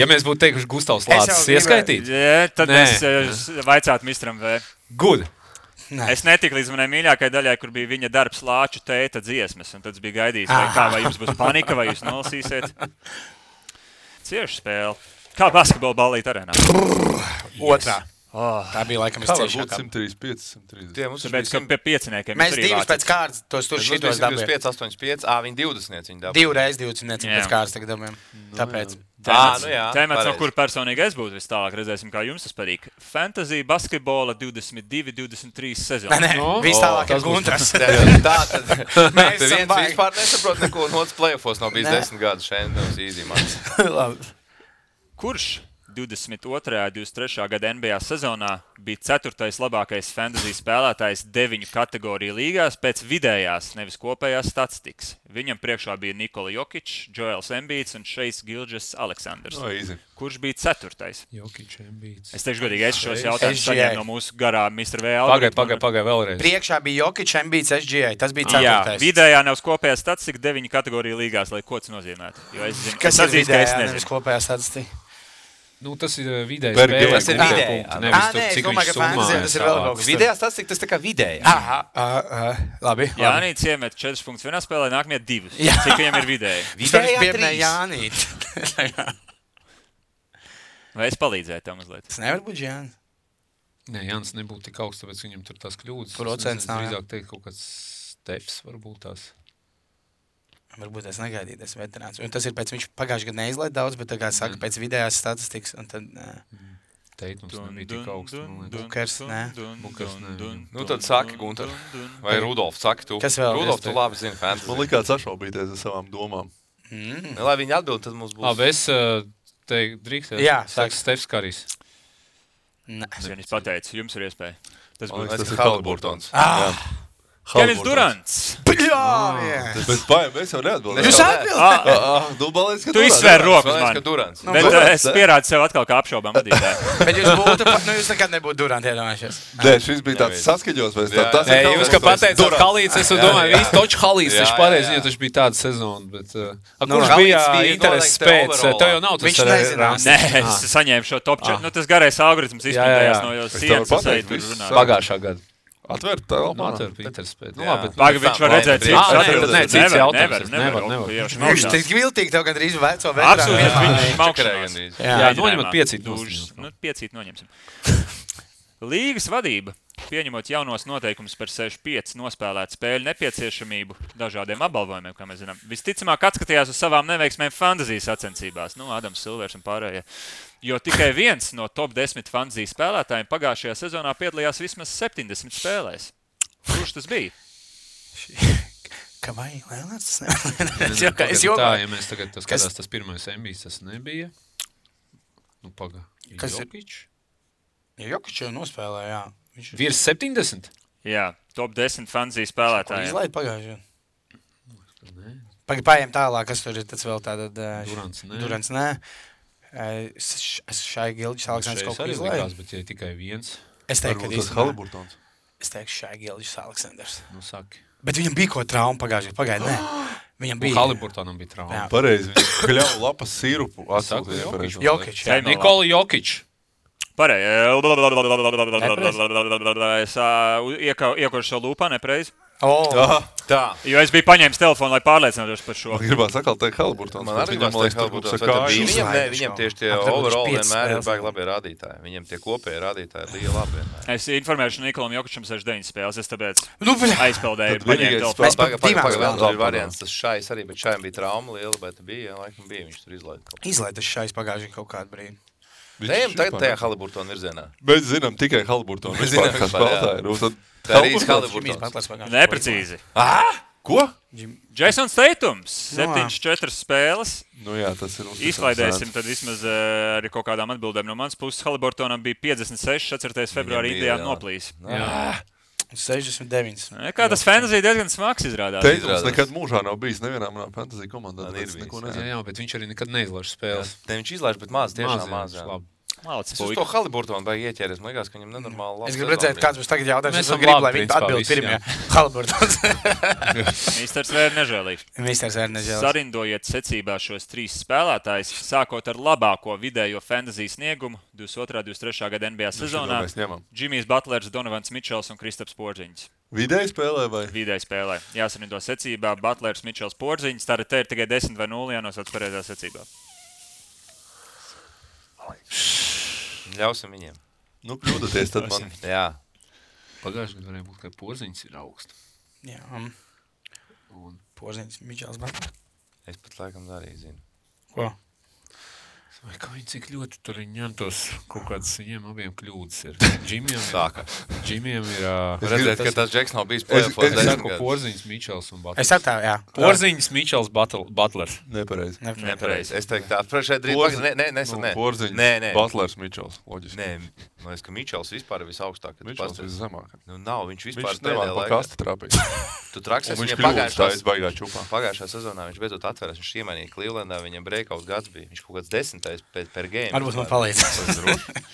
Ja mēs būtu teikuši Gustavs Es jau Lācis gribēju- ieskaitīt, Jā, tad Nē. es vaicātu Mistram V. good. Es netiku līdz manai mīļākajai daļai, kur bija viņa darbs Lāču tēta dziesmas, un tad es biju gaidījis, vai jums būs panika, vai jūs nolasīsiet. Cieši spēle. Kā basketbola ballīt arēnā? Otrā. Oh, Tā bija laikam Kā var būt visciešākā. 135, 130? Tie mums tāpēc, ka pie pieciniekiem Mēs jūs arī divus vācat. pēc kārtas tos tur šitos dabījām. 25, 85, viņi 20 viņi dabūja. 2 reizes 20 Jā. pēc kārtas tagad dabījām. Tāpēc. Nu jā, Tēmats, no pareizi. kur personīgi es būtu vis tālāk, redzēsim, kā jums tas patīk. Fantasy basketbola 22-23 sezona. Nē, viss tālāk ir tas būs- Guntras. Tā tad Mēs Te esam viens baigi. vispār nesaprot neko, un otrs play-offos nav bijis Nē. 10 gadus šeit, tas īzī man. Labi. Kurš 22. un 23. gada NBA sezonā bija 4. labākais fantasy spēlētājs 9 kategoriju līgās pēc vidējās, nevis kopējās statistikas? Viņam priekšā bija Nikola Jokic, Joels Embiids un Šeis Gilgeous Aleksandrs. No, easy. Kurš bija 4. Jokic, Embiids. Es teikšu godīgi, es šos jautājumus SGA. saņēmu no mūsu garā Mr. V. algoritma. Pagai vēlreiz. Priekšā bija Jokic, Embiids, SGA. Tas bija Jā, 4. vidējā nevis kopējā statistika 9 kategoriju līgās, lai ko tas nozīmētu. Jo es zinu, Kas es ir atzīstu, ka es vidējā, nezinu. nevis kopējā statistika? Nu, tas ir vidējais Bergi, spēle, tas ir punktu, vidējā, punktu, nu. nevis tur, Nē, es cik domāju, viņš ka fantasy summā tas ir ir vēl tālāk. kaut kas. Vidējā statistika, tas tā kā vidējā. Labi. Jānis iemet 4 punktus vienā spēlē, nākamie 2. Jā. Cik viņam ir vidēji? Vidējā Pieminēja 3. Jānīt. Vai es palīdzēju tam mazliet? Tas nevar būt Jānis. Nē, Jānis nebūtu tik augsts, tāpēc viņam tur tās kļūdas. Procents Es nav, jā. drīzāk teikt kaut kāds steps varbūt tās. Varbūt es negaidīju, tas veterāns. Un tas ir pēc viņš pagājušajā gadā neizlaid daudz, bet tā kā saka, pēc vidējās statistikas. Un tad, Teitums nebija tik augsts. man liekas. Bukers, nē. Bukers, nē. Nu tad saki, Gunter. Vai Rudolf, saki tu. Kas vēl? Rudolf, tu labi zini fantasy. Man likās sašaubīties ar savām domām. Lai viņi atbild, tad mums būs. Labi, es teiktu, drīkst. Jā, saka saka. Stefs Karijs. Es pateicu, jums ir iespēja. Tas būs Tas ir Haliburtons. Kevins Durants. Bet mēs jau neatbildējām. Jūs atbildējāt? Tu izsvēri rokas man. Durants. Bet es pierādu sev atkal kā apšaubām vadītāju. Bet jūs nekad nebūtu Durant iedomājušies. Nē, šis bija tāds saskaņos. Jūs, ka pateicāt Halīts, es domāju, visu toču Halīts, taču pareizi, jo taču bija tāda sezona. Kurš bija intereses pēc? Tev jau nav tas nezinās. Nē, es saņēmu šo top 4. Tas garais algoritms izpildējās no jau sienas. Pagājušā gada. Atvērt telpā. Atvērt intereses pēc. Pagaid, viņš var redzēt, cik cits jautājums. Nevar. Viņš tik viltīgi tev gandrīz veco veterānu. Absolūti, viņš maukšanās. Jā, noņemat 5 5 noņemsim. Līgas vadība, pieņemot jaunos noteikumus par 6-5 nospēlētu spēļu nepieciešamību dažādiem apbalvojumiem, kā mēs zinām, visticamāk atskatījās uz savām neveiksmēm fantasijas sacensībās. Adams Silvers un pārējie. Jo tikai viens no top 10 fantasijas spēlētājiem pagājušajā sezonā piedalījās vismaz 70 spēlēs. Kurš tas bija? Kavai Leonards? Es jokoju. Ja mēs tagad skatās tas pirmais MBs, tas nebija. Jokič? Jokič jau nospēlēja, jā. Virs 70? Jā, top 10 fantasijas spēlētājiem. Izlaid pagājušajā. Pagaidām tālāk, kas tur ir tāds vēl tāda... Durants, nē. Es šai Gilģis Aleksandrs kaut ko izlaidu. Bet ja tikai viens. Es teiktu, ka Haliburtons. Es teiktu, šai Gilģis Aleksandrs. Saki. Bet viņam bija ko trauma pagājušajā. Pagaid, nē. Viņam bija... Haliburtonam bija trauma. Pareizi, viņš kļauj lapas sirupu. Jokič. Nikola Jokič. Pareizi. Es iekošu šo lūpā nepreiz. Tā. Jo es biju paņēmis telefonu, lai pārliecinātos par šo. Gribētu sakāt, teikt Haliburtons. Man arī gribētu teikt Haliburtons. Viņam tieši tie overall vienmēr ir baigi labie rādītāji. Viņam tie kopēji rādītāji ir lieli labi vienmēr. Es informēšu Nikolam Jokičam 69 spēles, es tāpēc aizpeldēju. Pagaidām variants, tas šais arī, bet šajam bija trauma liela, bet bija, laikam bija, viņš tur izlaida. Izlaida šais pagājušajā kaut kādu brīdi. Ejam tagad tajā Haliburtona virzienā. Mēs zinām tikai Haliburtonu. Mēs zinām, kas spēlētāji. Tā arī Haliburtons. Neprecīzi. Ko? Jasons Tatums, 74 spēles. Jā, tas ir izklaidēsim tad vismaz arī kaut kādām atbildēm no manas puses. Haliburtonam bija 56, 4. februārī Indijā noplīs. 69. Kā tas fantasy diezgan smags izrādās. Tatums nekad mūžā nav bijis nevienā manā fantasy komandā. Jā, bet viņš arī nekad neizlaiž spēles. Viņš izlaiž, bet maz, tiešām maz. Es uz to Haliburtonu vajag ieķēries. Man liekas, ka viņam nenormāli labi. Es gribu redzēt, kāds būs tagad jautājums. Es gribu, lai viņi atbild pirmie. Haliburtons. Mīsters Vēr nežēlīgs. Sarindojiet secībā šos 3 spēlētājus, sākot ar labāko vidējo fantasy sniegumu 22-23. gada NBA sezonā. Jimmijs Butlers, Donovans Mičels un Kristaps Porziņš. Vidēji spēlē vai? Vidēji spēlē. Jāsarindo secībā Butlers, Mičels, Porziņš. Tātad te ir tikai 10 vai 0 jānosauc pareizā secībā. Ļausim viņiem. Kļūdaties tad man. Jā. Pagājušajā gadā varēja būt, ka Porziņš ir augsts. Jā. Porziņš, Mičels Butlers. Es pat laikam arī zinu. Ko? Vai kā viņi cik ļoti tur ņemtos kaut kādas viņiem abiem kļūdas ir. Džimiem ir... Redzēt, ka tas Džeks nav bijis play-offos. Es saku Porziņš, Mičels un Butlers. Es saku, jā. Porziņš, Mičels, Butlers. Nepareizi. Es teiktu tā. Šeit drīz... Nē. Porziņš, Butlers, Mičels. Loģiski. Nē, man liekas, ka Mičels vispār ir visaugstāk. Mičels viszemāk. Nav, viņš vispār viņš nevar pa kasti trāpīt. Tu traksies viņam pagājušā sezonā. Viņš beidzot atveras. Viņš iemainīja Clevelandā, viņam breakout gads bija. Viņš kaut kāds 10. per game. Varbūt man palīdzēs.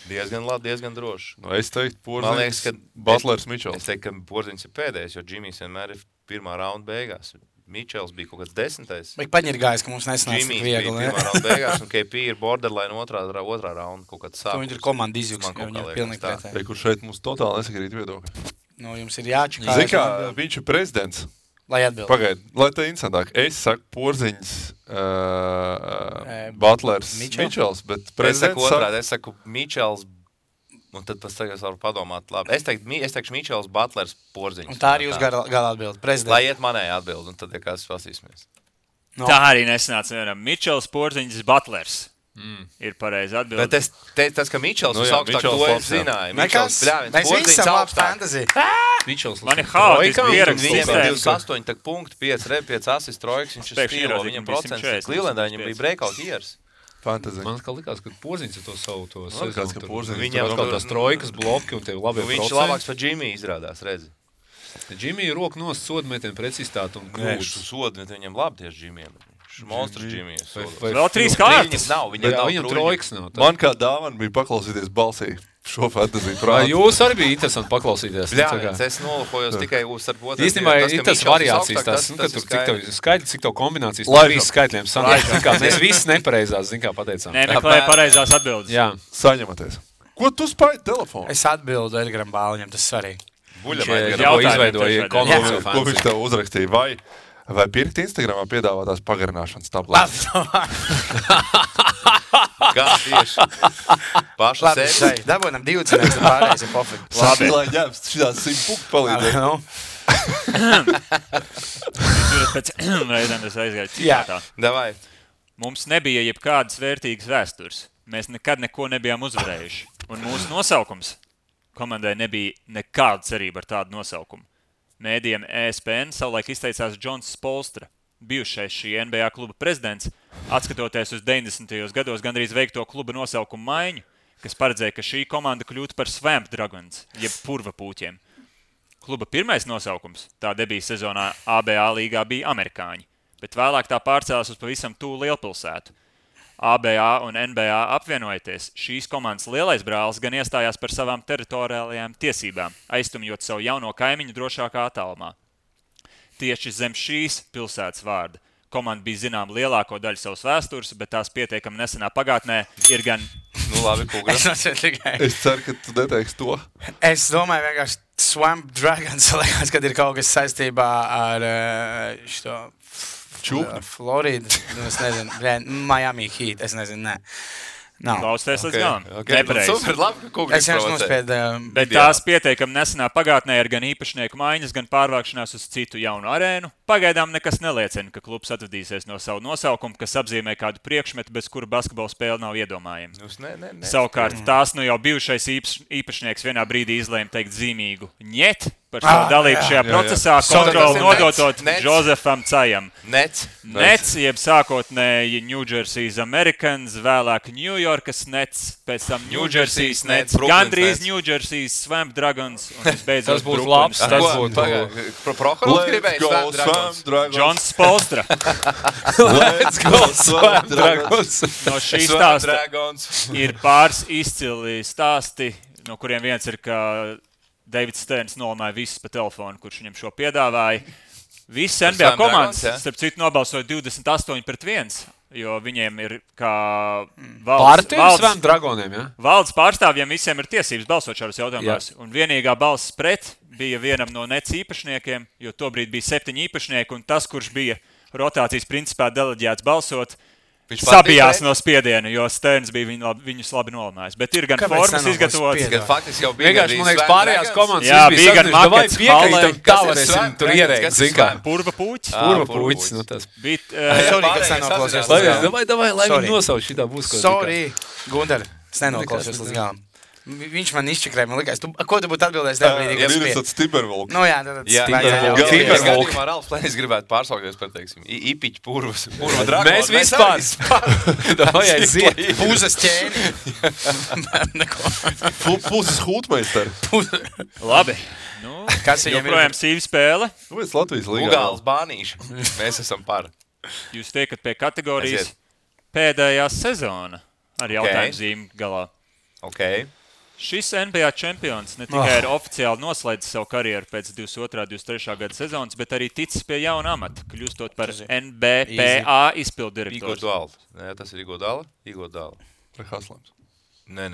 Diezgan labi, diezgan droši. Es teiktu, Porziņš, Butlers, Mičels. Es teiktu, ka Porziņš ir pēdējais, jo Džimijs vienmēr ir pirmā raunda beigās. Mičels bija kaut kāds 10. Vai paņirgājis, ka mums nesanāca tik viegli, Džimijs bija pirmā raunda beigās, un KP ir borderline otrā raunda kaut kāds sākums. Viņi ir komanda izjūks, ka viņi ir pilnīgi pretēji. Kur šeit mums totāli nesakrīt viedokļi. Jums ir jāčakā. Zini kā, viņš ir prezidents. Lai atbild. Pagaid, lai te interesantāk. Es saku Porziņš, Butlers, Mičels, bet prezidents es saku Mičels, un tad pēc tagad varu padomāt labi. Es teikšu Mičels, Butlers, Porziņš. Un tā arī jūs gala atbild. Prezidents. Lai iet manēja atbild, un tad, ja kāds pasīsimies. Tā arī nesanāca vienam. Mičels, Porziņš, Butlers. Ir pareizi atbildi. Bet tas, ka Mičels ir augstāk, to es zināju. Mēs visi esam labi fantasy. Man ir haotiski pieraksts. Viņiem ir 28 punkti, 5 asists, trojks, viņš ir stīlo, viņam procents. Clevelandā viņam bija breakout years. Fantasy. Man likās, ka Porziņš ar to savu to likās, ka Porziņš Viņam kaut tās trojkas bloki un tev labi viņš procenti. labāks par Jimmy izrādās, redzi. Džimija roka nost sodmetienu precizitāti un Viņš krūtis. sodmet viņam labi tieši Jimijam. Monstrs Jimijs. Vēl 3 kārtas. Viņam trojkas nav. Man kā dāvana bija paklausīties balsī šo fantasy Vai prātu. jūs arī bija interesanti paklausīties? Jā, es nolakojos tikai starp otriem. Īstenībā ir tas variācijas, tas, ka tur cik tev skaidri, cik tev kombinācijas no Laižam. 3 skaitļiem sanāk. Mēs visi nepareizās, zin kā pateicām. Nemeklēja pareizās atbildes. Jā. Saņematies. Ko tu spēj telefonu? Es atbildu Edgaram Bāliņam, tas svarīgi. Viņš Jautājumiem izveidoja tiešādi. konkursu Ko viņš tev uzrakstīja? Vai pirkt Instagramā piedāvātās pagarināšanas tabletes? Kā tieši? Paša Labi, sevi. šai, dabūnam 2 cenas, un pārējais ir pofīgi. Labi, lai ņemts šitās 100 punktu palīdzēt. Nu, Tur pēc reizēm es aizgāju citātā. Davai. Mums nebija jebkādas vērtīgas vēstures. Mēs nekad neko nebijām uzvarējuši. Un mūsu nosaukums komandai nebija nekāda cerība ar tādu nosaukumu. Mēdījiem ESPN savulaik izteicās Džons Spolstra, bijušais šī NBA kluba prezidents, atskatoties uz 90. gados gandrīz veikto kluba nosaukumu maiņu, kas paredzēja, ka šī komanda kļūtu par Swamp Dragons, jeb purva pūķiem. Kluba pirmais nosaukums tā debija sezonā ABA līgā bija amerikāņi, bet vēlāk tā pārcēlās uz pavisam tūlu lielpilsētu. ABA un NBA apvienojoties, šīs komandas lielais brālis gan iestājās par savām teritoriālajām tiesībām, aiztumjot savu jauno kaimiņu drošākā attālumā. Tieši zem šīs pilsētas vārda komanda bija zinām lielāko daļu savas vēstures, bet tās pietiekami nesenā pagātnē ir gan... Nu labi, Kugra. Es ceru, ka tu neteiksi to. Es domāju, vienkārši Swamp Dragons, liekas, kad ir kaut kas saistībā ar šo... Florida, es nezinu, Miami Heat, es nezinu, nē. Klausties līdz galam. Super, labi, ka Kugra Es vienkārši nospēdu. Bet tās pietiekami nesenā pagātnē ir gan īpašnieku maiņas, gan pārvākšanās uz citu jaunu arēnu. Pagaidām nekas neliecina, ka klubs atvadīsies no savu nosaukumu, kas apzīmē kādu priekšmetu, bez kura basketbola spēle nav iedomājama. Savukārt tās nu jau bijušais īpašnieks vienā brīdī izlēma teikt zīmīgu ņet par savu dalību šajā procesā, kontroli nodotot Josefam Cajam. Nets, jeb sākotnēji New Jersey's Americans, vēlāk New Yorkas Nets, pēc tam New Jersey's Nets, gandrīz New Jersey's Swamp Dragons, un visbeidzot Tas būtu labs, tas būtu... Prohorovs gribēja Swamp Dragons. Džons Spolstra. Let's go, Swamp Dragons. No šī stāsta ir pāris izcili stāsti, no kuriem viens ir, ka Davids Sterns nolamāja visus pa telefonu, kurš viņam šo piedāvāja. Visas NBA komandas, starp citu, nobalsoja 28-1, jo viņiem ir kā valdes pārstāvjiem visiem ir tiesības balsot šādos jautājumos. Un vienīgā balss pret bija vienam no Nets īpašniekiem, jo tobrīd bija 7 īpašnieki, un tas, kurš bija rotācijas principā deleģēts balsot, sabijās no spiediena, jo Sterns bija viņus labi nolamājis. Bet ir gan formas izgatavotas. Gan faktiski jau bija. Vienkārši, man liekas, pārējās komandas. Jā, bija gan makets, piekritam, tā varēsim tur ierēkt, zin kā. Purva pūķis. Purva pūķis, nu tas. Sorry, kas nenoklausies. Davai, lai viņi nosauc šitā būs. Sorry, Gunter, es nenoklausies līdz galam. Viņš man izčakrēja, man likās, ko tu būtu atbildējis tajā brīdī, kad Ir tāds Timberwolks. Nu jā, tad Timberwolks. Ralfs Plēnis gribētu pārsaukties par, teiksim, Ipiķu purva dragonu. Mēs vispār. Davai, aiziet. Pūzes ķēni. Puses hūtmeisteri. Labi. Nu, Kas viņam ir? joprojām sīva spēle. Nu, es Latvijas līgā. Ugāls bānīši. Mēs esam par. Jūs tiekat pie kategorijas pēdējā sezona ar jautājumu zīmi galā. Okay. Šis NBA čempions ne tikai ir oficiāli noslēdzis savu karjeru pēc 22.-23. gada sezonas, bet arī ticis pie jauna amata, kļūstot par NBPA izpildirektors. Igodala. Nē, tas ir Igodala. Vai Haslams? Nē,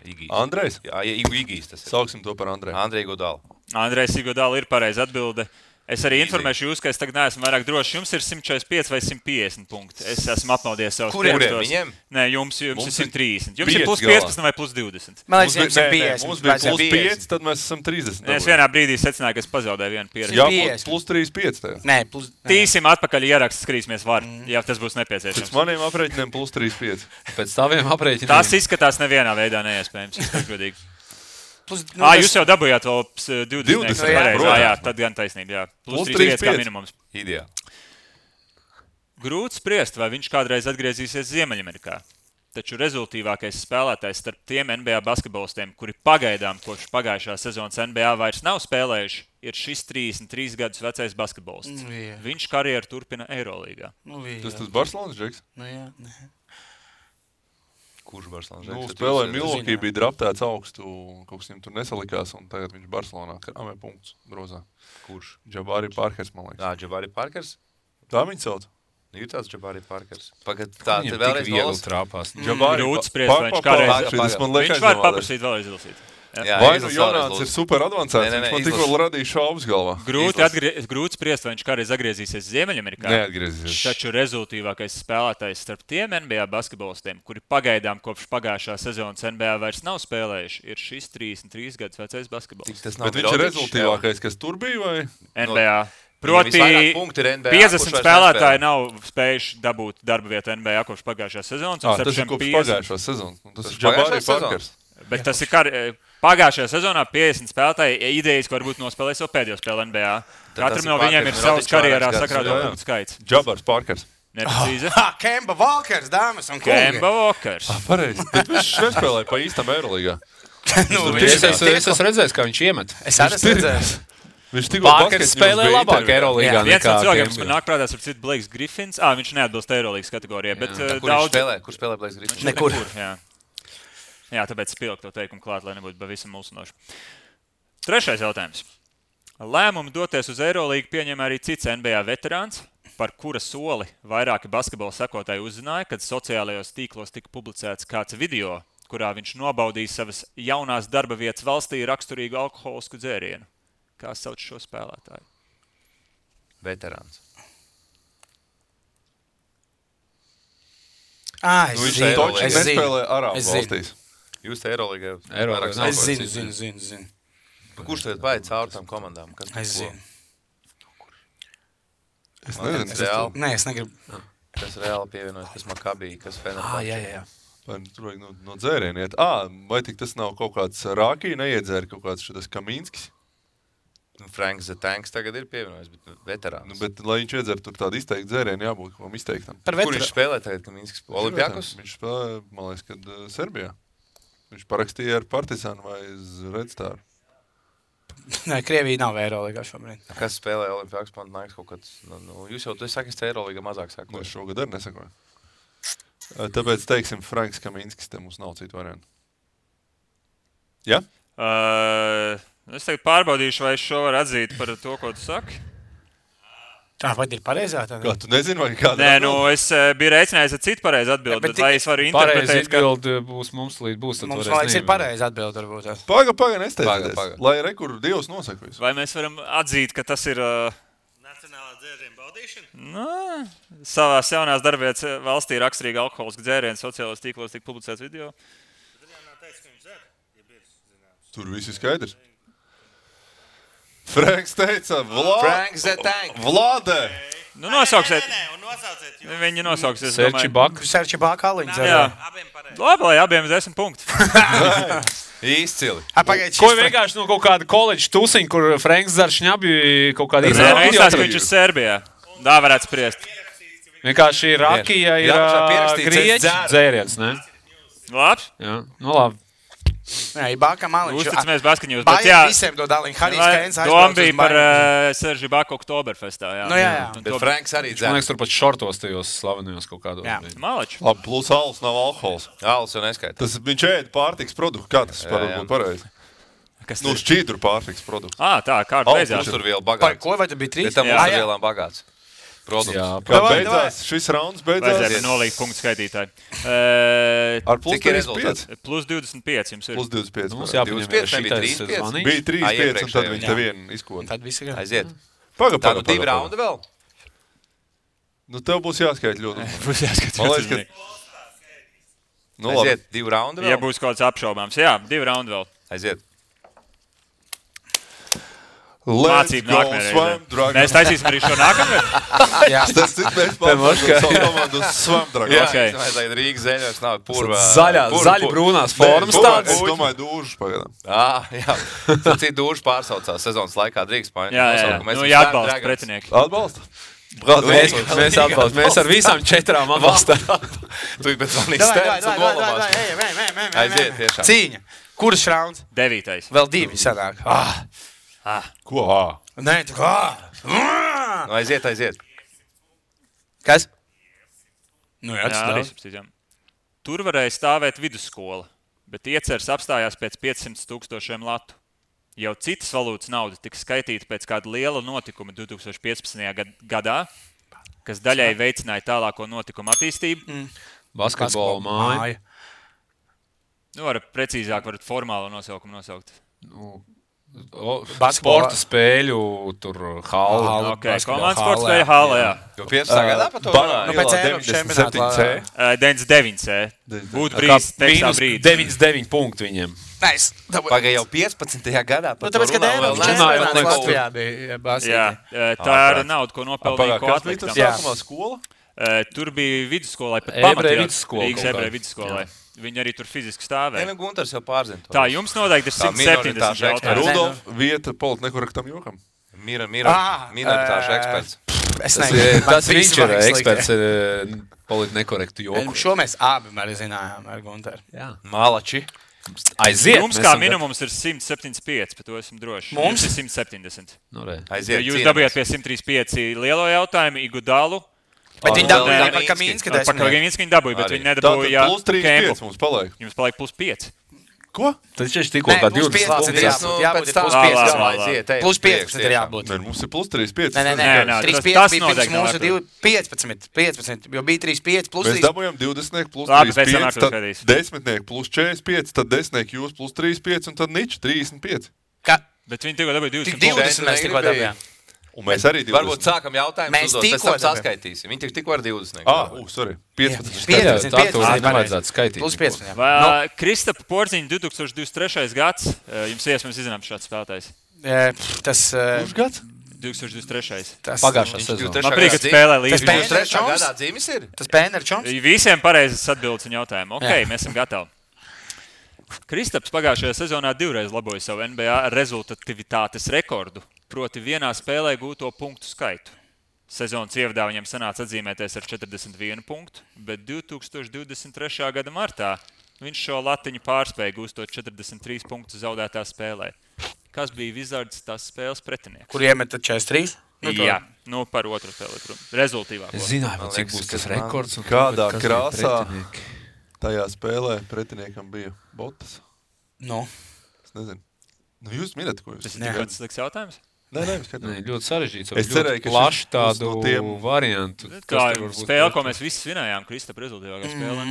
Igijs. Andrejs? Jā, Igijs tas ir. Sauksim to par Andreju. Andrej Igodala. Andrejs Igodala ir pareiza atbilde. Es arī informēšu jūs, ka es tagad neesmu vairāk drošs. Jums ir 145 vai 150 punkti. Es esmu apmaudies savus Kuriem viņiem? Nē, jums ir 130. Jums ir plus 15 vai plus 20. Man liekas, jums ir 50. Mums bija plus 5, tad mēs esam 30. Es vienā brīdī secināju, ka es pazaudēju vienu pieredzi. Jā, plus 35 tajā. Nē, Tīsim atpakaļ ieraksts, skatīsimies var, ja tas būs nepieciešams. Pēc maniem aprēķiniem plus 35. Pēc taviem aprēķiniem. Tas izskatās nevienā veidā neiespējams. Jūs jau dabūjāt vēl 20. Jā, tad gan taisnība. Jā. Plus 35 kā minimums. Ideāli. Grūti spriest, vai viņš kādreiz atgriezīsies Ziemeļamerikā. taču rezultīvākais spēlētājs starp tiem NBA basketbolistiem, kuri pagaidām kopš pagājušā sezonas NBA vairs nav spēlējuši, ir šis 33 gadus vecais basketbolists. Viņš karjeru turpina Eirolīgā. Tas Barcelonas džeks? Jā. Kurš Barcelonas džeks? Spēlēja Milwaukee, bija draftēts augstu, kaut kas viņam tur nesalikās, un tagad viņš Barcelonā krāmē punktus grozā. Kurš? Jabari Parkers, man liekas. Jabari Parkers? Tā viņi sauc. Ir tāds Jabari Parkers. Pagad, tā te vēlreiz viegli trāpās. Grūts spriest, vai viņš kādreiz. Viņš var paprasīt vēlreiz izlasīt. Vai nu Jonāns ir super advancēts, viņš man tikko radīja šaubas galvā. Grūts spriest, vai viņš kādreiz atgriezīsies Ziemeļamerikā. Neatgriezīsies. Taču rezultīvākais spēlētājs starp tiem NBA basketbolistiem, kuri pagaidām kopš pagājušā sezonas NBA vairs nav spēlējuši, ir šis 33 gadus vecais basketbolists. Bet viņš ir rezultīvākais, kas tur bija, vai? NBA. Proti, 50 spēlētāji nav spējuši dabūt darba vietu NBA kopš pagājušās sezonas. Tas ir kopš pagājušās sezonas. Tas ir Jabari Parkers. Bet tas ir pagājušajā sezonā 50 spēlētāji idejas, ka varbūt nospēlēs jau pēdējo spēli NBA. Katram no viņiem ir savs karjerā sakrāto punktu skaits. Jabars Parkers. Neprecīzi. Kemba Walkers, dāmas un kungi. Kemba Walkers. Pareizi. Bet viņš nespēlēja pa īstam Eirolīgā. Es esmu redzējis, kā viņš iemet. Es arī esmu redzējis. Parkers spēlē labāk Eirolīgā. Viens no cilvēkiem, kas man nāk prātā, ir cits Blakes Griffins. Viņš neatbilst Eirolīgas kategorijai, bet daudz... Kur spēlē Blakes Griffins? Nekur. Jā, tāpēc spilgtu to teikumu klāt, lai nebūtu pavisam mulsinoši. Trešais jautājums. Lēmumu doties uz Eirolīgu pieņem arī cits NBA veterāns, par kura soli vairāki basketbola sekotāji uzzināja, kad sociālajos tīklos tika publicēts kāds video, kurā viņš nobaudīja savas jaunās darba vietas valstī raksturīgu alkoholisku dzērienu. Kā sauc šo spēlētāju? Veterāns. Viņš nespēlē Arābu valstīs. Jūs te Eirolīgā. Es zinu. Kurš tev paiet cauri tām komandām? Es zinu. Es nezinu. Nē, es negribu. Kas reāli pievienojas, kas Makabī, kas Fenerbahče. Jā. Tur vajag no dzēriena iet. Vai tik tas nav kaut kāds Rākī neiedzēra, kaut kāds šitas Kamīnskis? Franks the Tanks tagad ir pievienojis, bet veterāns. Bet, lai viņš iedzer tur tādu izteiktu dzērienu, jābūt kaut kam izteiktam. Kur viņš spēlē tagad, Kamīnskis? Olimpiakos? Viņš spēlē, man liekas, kad Serbijā. Viņš parakstīja ar Partizānu vai Redstāru. Nē, Krievija nav Eirolīgā šobrīd. Kas spēlē Olimpiakos Panathinaikos kaut kāds? Jūs jau saki, ka Eirolīgā mazāk sakoju. Es šogad arī nesakoju. Tāpēc, teiksim, Franks Kamīnskis, te mums nav citu variantu. Ja? Es tagad pārbaudīšu, vai es šo varu atzīt par to, ko tu saki. Vai ir pareizā? Kā, tu nezini, vai kāda? Nē, es biju reicinājis ar citu pareizu atbildi, bet vai es varu interpretēt, pareizi atbildi būs mums līdz būs. Mums laiks ir pareizi atbildi, varbūt. Paga, nesteidieties. Lai rekur Dievs nosaka visu. Vai mēs varam atzīt, ka tas ir... Nacionālā dzēriena baudīšana? Savās jaunās darbvietas valstī raksturīga alkoholiska dzēriena sociālos tīklos tika publicēts video. Tur viss ir skaidrs. Franks teica, Vlade! Nu, nosauksiet. Un nosauciet. Viņi nosauksies. Serči Baka aliņas. Jā. Labi, lai abiem 10 punkti. Izcili. Ko vienkārši no kaut kāda koledža tusiņa, kur Franks Zaršņabi kaut kāda izrāda? Izsās, ka viņš ir Serbijā. Tā varētu spriest. Vienkārši Rakija ir grieķu dzēriens, ne? Labs? Jā, nu labi. Jā, Baka maliņš. Uzticamies basketņos, bet jā. Visiem to daliņu. Harijs Keins doma bija par Serži Baku Oktoberfestā, jā. Nu jā. Bet Franks arī dzēr. Man liekas, tur pat šortos tajos slavenajos kaut kādos. Jā. Malači. Labi, plus alus nav alkohols. Alus jau neskaita. Tas viņš ēd pārtiks produktu. Kā tas varbūt pareizi? Nu, šķīdru pārtiks produktu. Tā, kārta beidzās. Tur vēl Par bagāts. ko vai tu bija 3? Bet tam mums ir vielām bagāts. Produkts. Jā, Kā beidzās? Šis rauns beidzās. Vajadzēja nolikt punktu skaitītāji. Ar plus Cik ir 35. Plus 25 jums ir. Plus 25. Mums jāpaņem 25, nebija šitais 35. zvanīgs. Bija 35 un tad viņi Jā. te vienu izkoda. Tad viss ir. Aiziet. Paga. Tā nu 2 raunda vēl? Nu, tev būs jāskait ļoti. Būs jāskatās. Man liekas, ka... Nu, labi. Aiziet, 2 raunda vēl? Ja būs kaut kāds apšaubāms. Jā, 2 raundi vēl. Aiziet. Mācību nākamajā. Mēs taisīsim arī šo nākamajā. Jā. Tas cik mēs pārmākam savu komandu uz Svamdragu. Jā, Okay. es domāju, Rīgas zeļos nav purva. Zaļi brūnās formas tādas. Es domāju, dūžas pagadām. Jā. Tad citi dūži pārsaucās sezonas laikā drīkst paņemt. Jā. Nu, jāatbalsta pretinieki. Atbalsta? Mēs atbalstam. Mēs ar visām 4 atbalstam. Tu bet zvanīs stēns un nolamās. Aiziet tiešām. Cīņa. Kuras rauns? 9. Vēl 2 sanāk. Ko? Nē, tu kā? Nu, aiziet. Kas? Nu, jā, Jā, arī substīdām. Tur varēja stāvēt vidusskola, bet ieceres apstājās pēc 500,000 latu. Jau citas valūtas nauda tika skaitīta pēc kāda liela notikuma 2015. gadā, kas daļai veicināja tālāko notikumu attīstību. Basketbola māja. Nu, varat formālo nosaukumu nosaukt. Sporta spēļu, tur hāla. Komandas sporta spēļu hāla, jā. Jo 15. gadā pa to Nu, pēc Eiropas čempionāta. 99C. Būtu brīdis, tekstā brīdis. 99 punkti viņiem. Nice. Pagaid jau 15. gadā. Nu, tāpēc, kad Eiropas čempionāts Latvijā bija basketbolā. Jā, tā ir nauda, ko nopelnīja ko atliktam. Sākumā skola? Tur bija vidusskolai, pat Ebreju pamatījās vidusskolai. Viņi arī tur fiziski stāvēja. Nē, Gunters jau pārzina to. Tā, jums noteikti ir 170 jautājums. Rudolf, vieta politnekorektam jokam. Minoritāšu eksperts. Tas viņš ir eksperts politnekorektu joku. Šo mēs abi arī zinājām ar Gunteru. Malači. Aiziet. Jums kā minimums ir 175, bet to esmu droši. Mums ir 170. Aiziet. Jūs dabījāt pie 135 lielo jautājumu, Igudalu. Bet viņi dabūja par Kamīnska 10. Par Kamīnska viņi dabūja, bet viņi nedabūja plus 3,5 mums paliek. Jums paliek plus 5. Ko? Tad šeit tikko kā 20 punktus. Jābūt plus 15. Plus 15 ir jābūt. Nē, mums ir plus 3,5. Nē, 3,5 bija pirms mūsu 15, jo bija 3,5 plus 3. Mēs dabūjām 20 plus 3,5, tad 10 plus 45, tad 10 jūs plus 3,5 un tad nič 35. Bet viņi tikko dabūja 20 punktus. 20 mēs tikko dabījām. Un mēs arī 20. Varbūt sākam jautājumus uzdot, pēc tam saskaitīsim. Viņi tikko ar 20. Sorry. 15. Tā to nevajadzētu skaitīt. Plus 15. Kristapa Porziņa 2023. gads. Jums iespējams izzināt šāds spēlētājs. Tas... Kurš gads? 2023. Pagājušā sezona. Man priek, kad spēlē līdz 2023. gadā dzīves ir? Tas Pēner Čoms? Visiem pareizes atbildes un jautājumu. Ok, mēs esam gatavi. Kristaps pagājušajā sezonā 2 reiz laboja savu NBA rezultativitātes rekordu. Proti vienā spēlē gūto punktu skaitu. Sezonas ievadā viņam sanāca atzīmēties ar 41 punktu, bet 2023. gada martā viņš šo latiņu pārspēja gūstot 43 punktus zaudētā spēlē. Kas bija Wizards tās spēles pretinieks? Kur iemeta 43? Jā, par otru spēli. Rezultīvāko. Es zināju, cik būs tas rekords. Kādā krāsā tajā spēlē pretiniekam bija Botas? Es nezinu. Jūs minat, ko jūs? Tas ir tikai sliks jautājums? Nē, ļoti sarežģīts. Es cerēju, ka plaši tādu variantu. Kā spēle, ko mēs visi svinējām, Kristapa rezultīvākā spēle.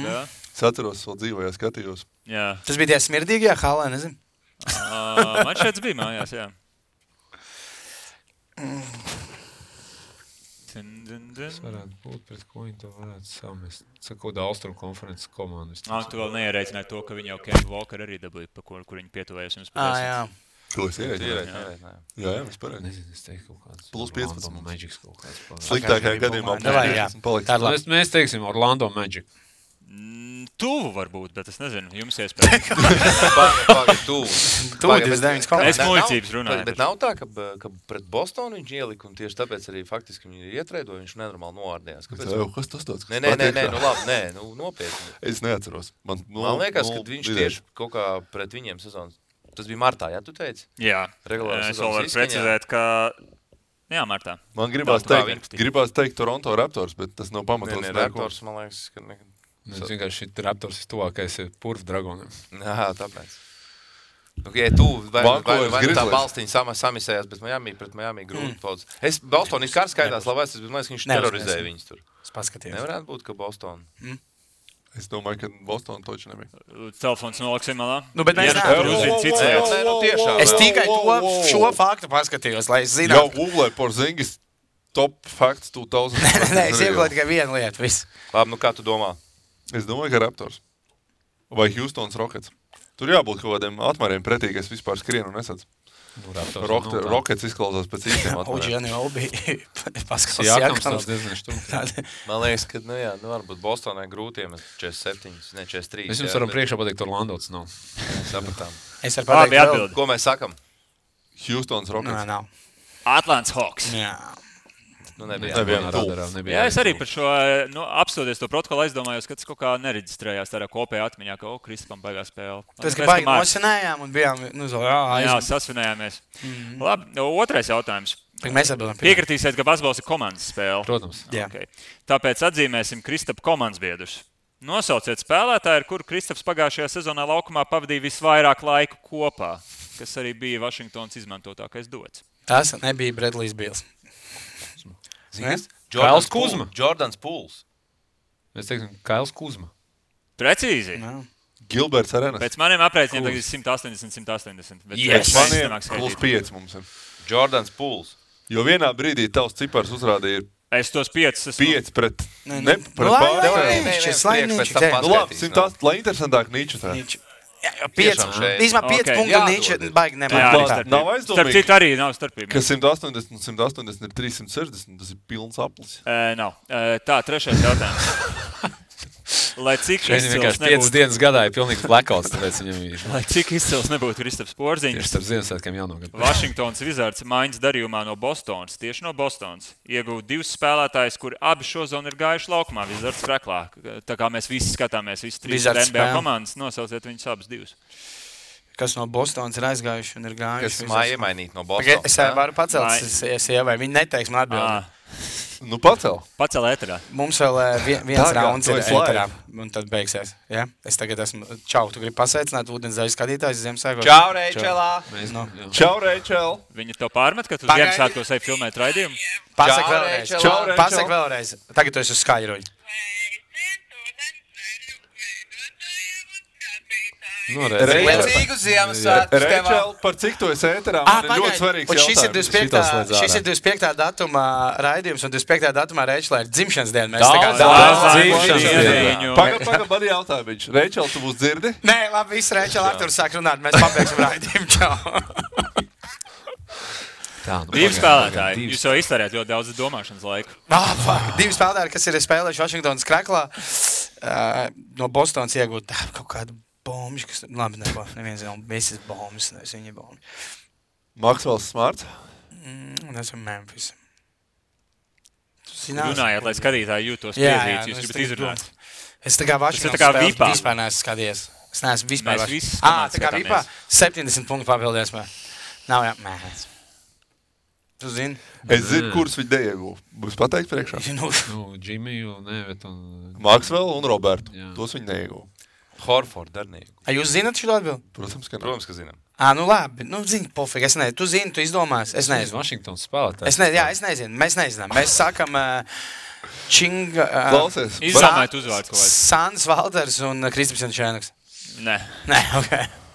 Es atceros, vēl dzīvojā skatījos. Jā. Tas bija tie smirdīgajā halē, nezinu. Man šeit bija mājās, jā. Tas varētu būt, pret ko viņi to varētu samest. Sakot, Austrum konferences komandas. Tu vēl neierēķināji to, ka viņi jau Kemba Walker arī dabūja, pa kur viņi pietuvējas jums patiesi. Jā. Ko es ierēķināju? Jā, mēs pareizi. Nezinu, es teiktu kaut kāds. Plus 15 Orlando Magic kaut kāds. Sliktākajā gadījumā paliks. Mēs teiksim Orlando Magic. Tuvu varbūt, bet es nezinu, jums iespējams. Tuvu 29 komandas. Es muļķības runāju. Bet nav tā, ka pret Bostonu viņš ielika un tieši tāpēc arī faktiski viņi ietrēdoja, viņš nenormāli novārdījās. Kas tas tāds? Nē, labi, nopietni. Es neatceros. Man liekas, ka viņš tieši kaut kā pret viņiem sezonas. Tas bija martā, jā, tu teici? Jā, es vēl varu precizēt, ka... Jā, martā. Man gribās teikt Toronto Raptors, bet tas nav pamatots. Raptors, man liekas, ka... Es vienkārši šī Raptors ir tuvākais Purv Dragonam. Jā, tāpēc. Tu vai tā balstiņa samisējās, bet pret Miami grūti paudz. Boston ir kārs skaitās labais, bet man liekas, ka viņš terorizēja viņus tur. Es paskatījos. Nevarētu būt, ka Boston... Es domāju, ka Boston toči nebija. Telefons noliksim malā. Bet mēs nevaram. Es tikai šo faktu paskatījos, lai es zinātu. Jau Google Porzingis top facts 2000. Nē, es iegūtu tikai vienu lietu, visu. Labi, kā tu domā? Es domāju, ka Raptors. Vai Houstons Rockets. Tur jābūt kaut kādiem atmēriem pretī, ka es vispār skrienu un nesadzu. Rockets izklausās pēc īstiem atmēriem. Oģiani vēl bija paskatās Jākams diezgan štumti. Man liekas, ka, varbūt Bostonai grūti iemest 47, ne 43. Mēs jums varam priekšā pateikt, Orlando tas nav. Sapratām. Es varu pateikt vēl. Ko mēs sakam? Houstons Rockets. Nav. Atlants Hawks. Jā. Jā, es arī par šo, apstoties to protokolu, aizdomājos, ka tas kaut kā nereģistrējās tādā kopējā atmiņā, ka, Kristapam beigās spēle. Tas, ka baigi nosinējām un bijām, jā, sasvinējāmies. Labi, otrais jautājums. Mēs atbildam. Piekritīsiet, ka basketbols ir komandas spēle. Protams. Okay. Tāpēc atzīmēsim Kristapa komandas biedrus. Nosauciet spēlētāju, ar kuru Kristaps pagājušajā sezonā laukumā pavadīja visvairāk laiku kopā, kas arī bija Vašingtonas izmantotākais dots. Tas nebija Bredlijs Bils. Kails Kuzma. Jordans Pools. Es teiktu, Kails Kuzma. Precīzi. Gilberts Arenas. Pēc maniem aprēķiniem tagad 180. Pēc maniem +5 mums ir. Jordans Pools. Jo vienā brīdī tavs cipars uzrādīja es tos 5 pret pārējiem. Lai interesantāk Nīču tā. 5 punktu Nīču baigi nemāk. Nav aizdomīgi. Starp citu arī nav starpība. Ka 180 un 180 ir 360, tas ir pilns aplis. Nav. Tā, trešais jautājums. Lai cik izcils nebūtu... 5 dienas gadā ir pilnīgs blackouts, tāpēc viņam ir... Lai cik izcils nebūtu Kristaps Porziņš. Tieši starp Ziemassvētkiem jauno gadu. Washingtons Wizards maiņas darījumā no Bostonas, tieši no Bostonas, ieguva 2 spēlētājus, kuri abi šozonu ir gājuši laukumā Wizards kreklā. Tā kā mēs visi skatāmies, visi 3 NBA komandas, nosauciet viņus abus 2. Kas no Bostonas ir aizgājuši un ir gājuši. Kas māja iemainīt no Bostonas. Es varu pacelt sievai, viņi neteiks man atbildi. Nu, pacel ēterā. Mums vēl viens rauns ir ēterā, un tad beigsies. Ja? Es tagad esmu... Čau, tu gribi pasveicināt ūdensdaļu skatītājus Ziemassvētkos? Čau, Reičelā! Čau, Reičel! Viņi to pārmet, ka tu Ziemassvētkos ej filmēt raidījumu? Pasaka vēlreiz. Tagad tu esi uz skaļruņu. Liecīgu Ziemassvētkus tev! Reičel, par cik tu esi ēterā? Man ir ļoti svarīgs jautājums. Šis ir 25. datuma raidījums, un 25. datumā Reičelā ir dzimšanas diena. Pagaid, man jautāja viņš. Reičel, tu mūs dzirdi? Nē, labi, viss Reičel Arturs sāk runāt, mēs pabeigsim raidījumu. Čau! Divi spēlētāji. Jūs jau iztērējat ļoti daudz domāšanas laiku. Divi spēlētāji, kas ir spēlējuši Vašingtonas kreklā, no Bostonas iegūt kaut kādu bombiņu, kas labi neviens nav visas bombas, nevis viņa bombi. Maxwells Smarts? Esam Memphis. Runājāt, lai skatītāji jūtos piezīts, jūs gribat izrunāt. Es tā kā Vašingtonas spēles vispār neesmu skatījies. Es neesmu vispār Vašingtonas. Tā kā Vipā 70 punktu papildies. Nav jāmēs. Tu zini? Es zinu, kurus viņi neieguva. Būs pateikt priekšā? Džimiju, Nevet un... Maxwell un Robertu. Tos viņi neieguva. Horford ar neieguva. Jūs zināt šo atbildi? Protams, ka zinām. Nu labi. Zini, pofīgi. Es nezinu. Tu zini, tu izdomās. Es nezinu. Washingtons spēlētājs. Es nezinu. Mēs nezinām. Mēs sākam Činga... Klausies. Izdomājot uzvārdu kaut kāds. Sāns Valders un Kristaps Jančēnaks. Nē, ok.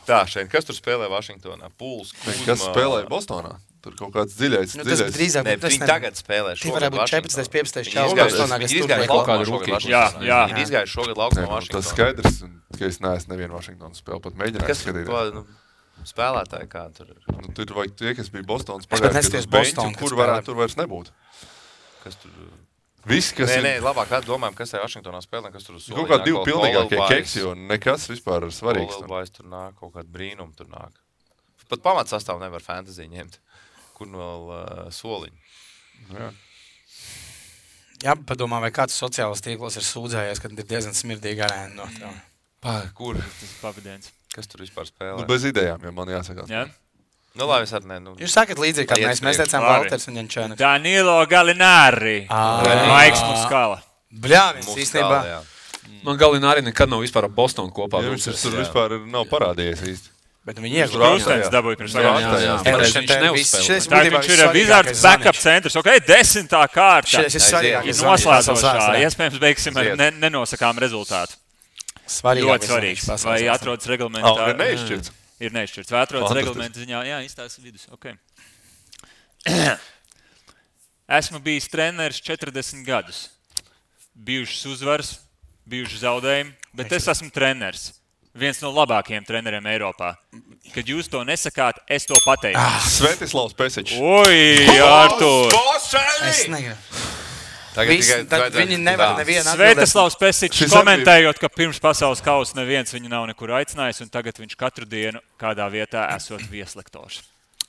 Tā, šeit, kas tur spēlē Vašingtonā? Pools, Kuzma... Kas spēlē Bostonā? Tur kaut kāds dziļais. Tas drīzāk... Viņi tagad spēlē šogad Vašingtonā. Tie varētu būt 14. Ir izgājuši šogad laukumā Vašingtonā. Tas skaidrs, ka es neesmu nevienu Vašingtonas spēli pat mēģināt skatīt. Spēlētāji kā tur ir? Tur vajag tie, kas bija Bostonas pagājušajā beņķi, kur varētu tur vairs nebūt. Kas tur... Viss, kas nē, labāk domājam, kas ir Vašingtonā spēlē, kas tur uz soliņā. Kaut kādi divi pilnīgākie keksi, jo nekas vispār ir svarīgs. Olelbais tur nāk, kaut kādi brīnumi tur nāk. Pat pamatsastāvu nevar fantasy ņemt. Kur vēl soliņu. Jā, padomā, vai kāds sociālos tīklos ir sūdzējies, kad ir diezgan smirdīga arēna no tā. Kur? Tas ir pavadiens. Kas tur vispār spēlē? Bez idejām, ja man jāsakās. Jā. Labi, es arī ne. Jūs sakat līdzīgi, kā mēs teicām Valters un Jančēnaks. Danilo Gallinari. Maiks Muskala. Bļāvis, īstenībā. Man Gallinari nekad nav vispār ar Bostonu kopā. Viņš tur vispār nav parādījies īsti. Bet viņi iegūst. Krustens dabūja pirms Viņš neuzspēlē. Tā viņš ir Wizards backup centrs. Ok, 10. kārta. Šis ir svarīgākais. Noslēdzošā. Iespējams, beigsim ar nenosakām rezultātu. Ļoti svarīgs. Vai atrodas reglamentā? Neizšķirts. Ir neizšķirts. Vai atrodas reglamenta ziņā? Jā, izstāsta vidus. Ok. Esmu bijis treneris 40 gadus. Bijušas uzvaras, bijuši zaudējumi, bet es esmu treneris. Viens no labākajiem treneriem Eiropā. Kad jūs to nesakāt, es to pateiktu. Svetislavs Pesičs. Oi, Artur! Es negribu. Viņi nevar nevienu atbildēt. Svetislavs Pesičs komentējot, ka pirms pasaules kausa neviens viņu nav nekur aicinājis, un tagad viņš katru dienu kādā vietā esot vieslektors.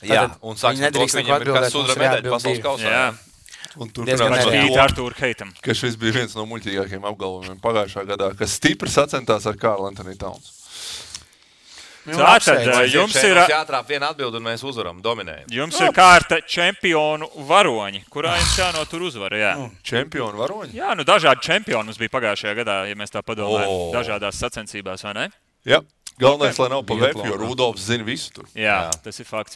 Jā, un sāksim to, ka viņam ir kāds sudra medaļa pasaules kausā. Un Artūru Heitam. Ka šis bija viens no muļķīgākajiem apgalvojumiem pagājušā gadā, kas stipri sacentās ar Karlu Antoni Towns. Tātad jums ir jātrāp viena atbilde un mēs uzvaram, dominējam. Jums ir kārta čempionu varoņi, kurā jums jānotur uzvara, jā. Čempionu varoņi? Jā, dažādi čempioni mums bija pagājušajā gadā, ja mēs tā padomājam, dažādās sacensībās, vai ne? Jā. Galvenais, lai nav pa veku, jo Rudolfs zina visu tur. Jā, tas ir fakts.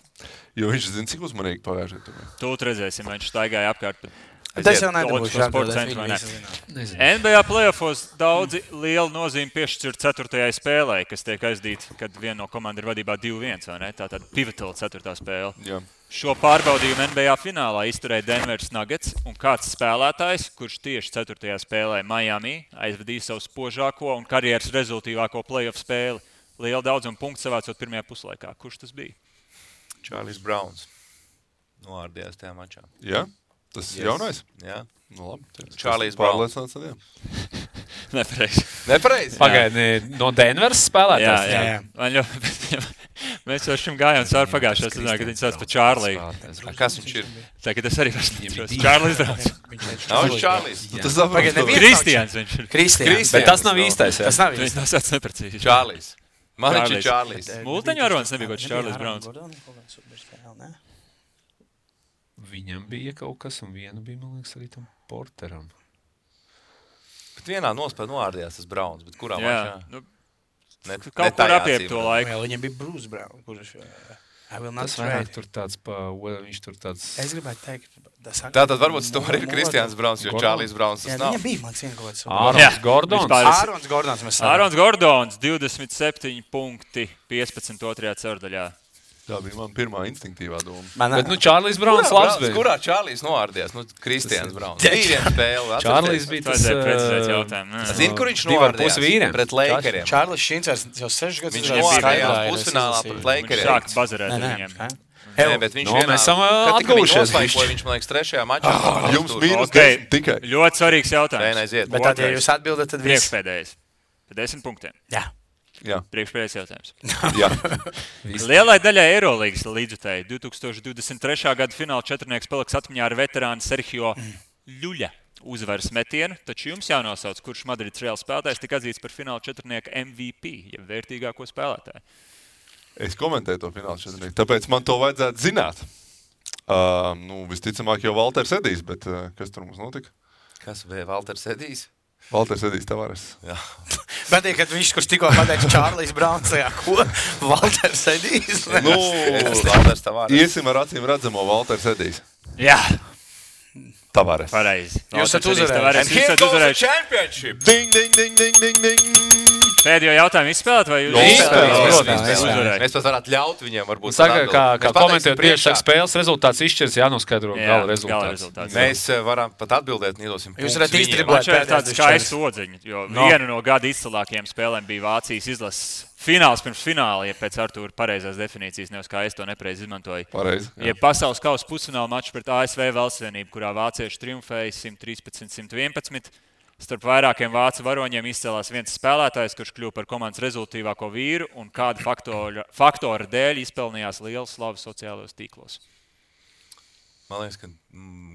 Jo viņš zina, cik uzmanīgi pagājušajā tur. Tūt redzēsim, vai viņš staigāja apkārt. Tas jau nedabūšu NBA playoffos daudzi lielu nozīmi piešķir 4. spēlē, kas tiek aizdīta, kad viena no komanda ir vadībā 2-1, vai ne? Tātad pivotal 4. spēle. Jā. Šo pārbaudījumu NBA finālā izturēja Denveras Nuggets, un kāds spēlētājs, kurš tieši 4. spēlē Miami aizvadīja savu spožāko un karjeras rezultīvāko playoff spēli. Liela daudzuma punktu savācot pirmajā puslaikā. Kurš tas bija? Čārlis Brauns. Noārdījās tajā mačā. Jā? Tas ir jaunais? Jā. Nu labi. Čārlis Brauns. Nepareizi. Pagaidi, no Denveras spēlētājs? Jā. Mēs jau šim gājām cauri pagājušajā sezonā, kad viņi sauc par Čārliju. Kas viņš ir? Tagad es arī vairs neatceros. Čārlis Brauns. Nav viņš Čārlis. Kristians viņš ir. Kristians. Bet tas nav īstais, jā? Tas nav Viņš nav sauc neprecīzi. Čārlis. Man viņš ir Čārlis. Multeņu varonis nebija kaut Čārlis Brauns. Viņam bija kaut kas, un vienu bija, man liekas, arī tam Porteram. Bet vienā nospēlē noārdījās tas Brauns, bet kurā mačā? Kaut kur apiep to laiku. Viņam bija Bruce Brown, kurš... Tas vairāk tur tāds viņš tur tāds... Es gribētu teikt... Tātad varbūt tas tomēr ir Kristians Brauns, jo Čārlis Brauns tas nav. Viņam bija, man cienīt kaut kāds... Ārons Gordons, 27 punkti, 15 otrajā ceturdaļā. Tā bija man pirmā instinktīvā doma. Bet, Čārlis Brauns labs bija. Kurā Čārlis noārdījās? Kristians Brauns. Vīriem spēle. Čārlis bija tas... precizēt jautājumu. Zini, kur viņš noārdījās? Pret Lakeriem. Čārlis Šincers jau 6 gadus... Viņš noārdījās pusfinālā pret Lakeriem. Sāk bazarēt ar viņiem. Nē, bet viņš vienā... Mēs esam atguvušies. Viņš, man liekas, 3. mačā. Jums mīnus 10 tikai. Ļoti svarīgs jautājums. Aiziet. Bet tad, ja jūs atbildat, tad viss. Priekšpēdējais. Par 10 punktiem. Jā. Priekšpēdējais jautājums. Jā. Lielai daļai Eirolīgas līdzutēji 2023. gada fināla četrnieks paliks atmiņā ar veterānu Sergio Ļuļa uzvaras metienu, taču jums jānosauc, kurš Madrids Reāls spēlētājs tika atzīts par fināla četrnieka MVP, jeb vērtīgāko spēlētāju. Es komentēju to fināla četrnieku, tāpēc man to vajadzētu zināt. Visticamāk jau Valters Edijs, bet kas tur mums notika? Kas bija Valters Edijs? Valters Edijs Tavares. Jā. Bet, kad viņš, kurš tikko pateica Čārlis Brauns, ko? Valters Edijs? Valters Tavares. Iesim ar acīm redzamo Valters Edijs. Jā. Tavares. Pareizi. Jūs esat uzvarējuši. And here goes the championship. Ding, ding, ding, ding, ding, ding. Pēdējo jautājumu izspēlēt, vai jūs izspēlēt? Mēs pat varētu ļaut viņiem varbūt. Saka, kā komentējot priekšāk spēles rezultāts izšķirs, jānoskaidro gala rezultāts. Mēs varam pat atbildēt, nedosim punktus. Jūs varat iztriblēt tāds skaists odziņi, jo viena no gada izcilākajiem spēlēm bija Vācijas izlases fināls pirms fināla, ja pēc Artūra pareizās definīcijas, nevis kā es to nepareizi izmantoju. Pareizi. Ja pasaules kausa pusfināla mačs pret ASV Valstsvienību, kurā vācieši triumfēja 113-111. Starp vairākiem vācu varoņiem izcēlās viens spēlētājs, kurš kļuva par komandas rezultīvāko vīru un kāda faktora dēļ izpelnījās lielu slavu sociālajos tīklos. Man liekas, ka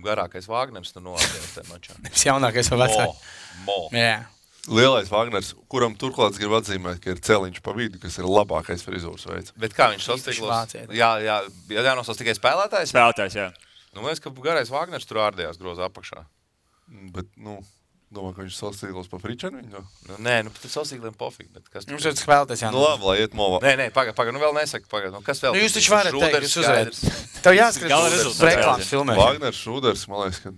garākais Vāgners tur noādījās tajā mačā. Jaunākais vai vecāks? Jā. Lielais Vāgners, kuram turklāt grib atzīmēt, ka ir celiņš pa vidu, kas ir labākais frizūras veids. Bet kā viņš sastīklos? Jānosauc tikai spēlētājs? Spēlētājs, jā. Man liekas, ka garais Vāgners tur ārdījās groza apakšā. Bet, domāju, ka viņš sastīklos pa fričenu viņu? Nē, tad sastīkliem pofīgi. Jums ir spēlētājs, jā. Labi, lai iet movā. Nē, pagaid, vēl nesaka, kas vēl? Jūs taču varat teikt, jūs uzvarēt. Tev jāskrīt reklāmas filmēšana. Vāgners, Šūders, man liekas, ka...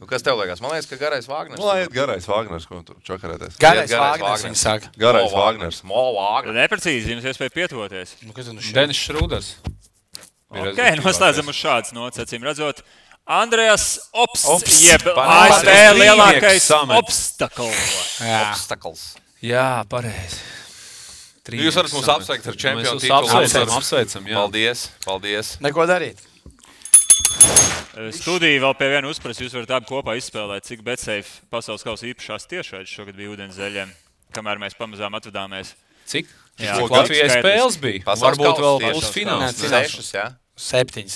Kas tev liekas? Man liekas, ka garais Vāgners. Lai iet garais Vāgners, ko tur čakarēties. Garais Vāgners, viņi saka. Garais Vāgners. Neprecīzi, jums iespēja pietuvoties. Denis Šrūders. Ok, noslēdzam uz šādas nots, acīm redzot. Andrejas Opsts, jeb ASV lielākais obstakls. Jā, pareizi. Jūs varat mums apsveikt ar čempionu titulu. Apsveicam, jā. Paldies. Neko darīt. Studija vēl pie viena uzprasa, jūs varat abi kopā izspēlēt, cik BetSafe pasaules kausa īpašās tiešraides šogad bija ūdenszeļiem, kamēr mēs pamazām atvadāmies. Cik? Jā, Latvijai spēles bija. Varbūt vēl pusfināls. 6, jā? 7.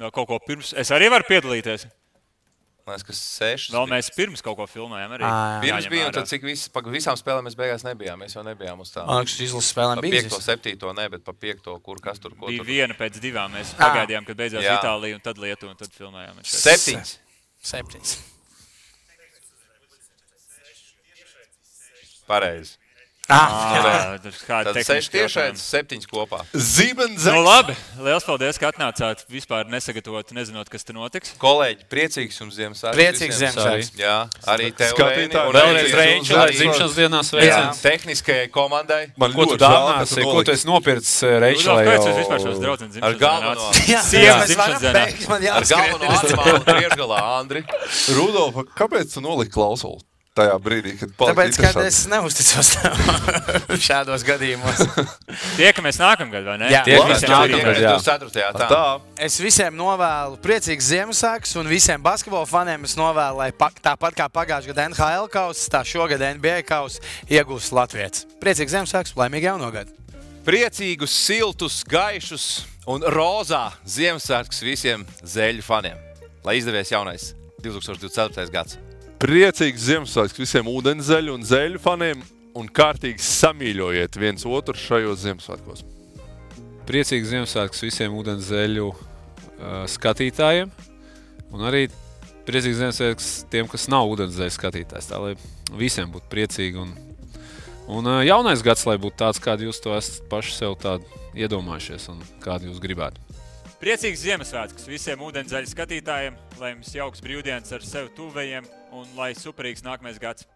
Kaut ko pirms. Es arī varu piedalīties. Liekas, ka 6. Vēl mēs pirms kaut ko filmējām arī. Pirms bija, un tad cik visām spēlēm mēs beigās nebijām. Mēs jau nebijām uz tā. Izlases spēlēm bija. 5. 7. ne, bet pa 5. kur kas tur ko. Bija viena pēc 2. Mēs pagaidījām, kad beidzās Itālija un tad Lietuva, un tad filmējām. 7. Pareizi. Tad 6 tiešais, 7 kopā. Zibens! Nu labi, liels paldies, ka atnācāt vispār nesagatavot, nezinot, kas te notiks. Kolēģi, priecīgs jums Ziemassvētku. Priecīgs Ziemassvētku. Jā, arī tev, Skatītāji, un vēlreiz Reiču, lai dzimšanas dienās veicams. Tehniskajai komandai. Ko tu dāvināsi, ko tu esi nopircis Reiču, lai jau... Kāds jūs vispār šos draudzenes ar galveno. Sievas dzimšanas dienā. Ar galveno animālu priekšgalā, Andri. Rudolf, kāpēc tu noliki klausuli? Tajā brīdī, kad tāpēc, kad es neusticos šādos gadījumos. Tiekamies nākamgad, vai ne? Jā. Tiekamies nākamgad, jā. Tā. Es visiem novēlu priecīgs Ziemassvētkus un visiem basketbola faniem es novēlu, lai tāpat kā pagājušajā gadā NHL kauss, tā šogad NBA kauss iegūs Latvijas. Priecīgs Ziemassvētkus, laimīgi jauno gadu. Priecīgus, siltus, gaišus un rozā Ziemassvētkus visiem Zeļu faniem. Lai izdevies jaunais 2024. gads. Priecīgs Ziemassvētks visiem ūdenszeļu un zeļu faniem un kārtīgi samīļojiet viens otru šajos Ziemassvētkos. Priecīgs Ziemassvētks visiem ūdenszeļu skatītājiem un arī priecīgs Ziemassvētks tiem, kas nav ūdenszeļu skatītājs. Tā, lai visiem būtu priecīgi un jaunais gads, lai būtu tāds, kādu jūs to esat paši sev tādu iedomājušies un kādu jūs gribētu. Priecīgs Ziemassvētkus visiem ūdenszeļu skatītājiem, lai jums jauks brīvdienas ar sev tuvējiem un lai superīgs nākamais gads.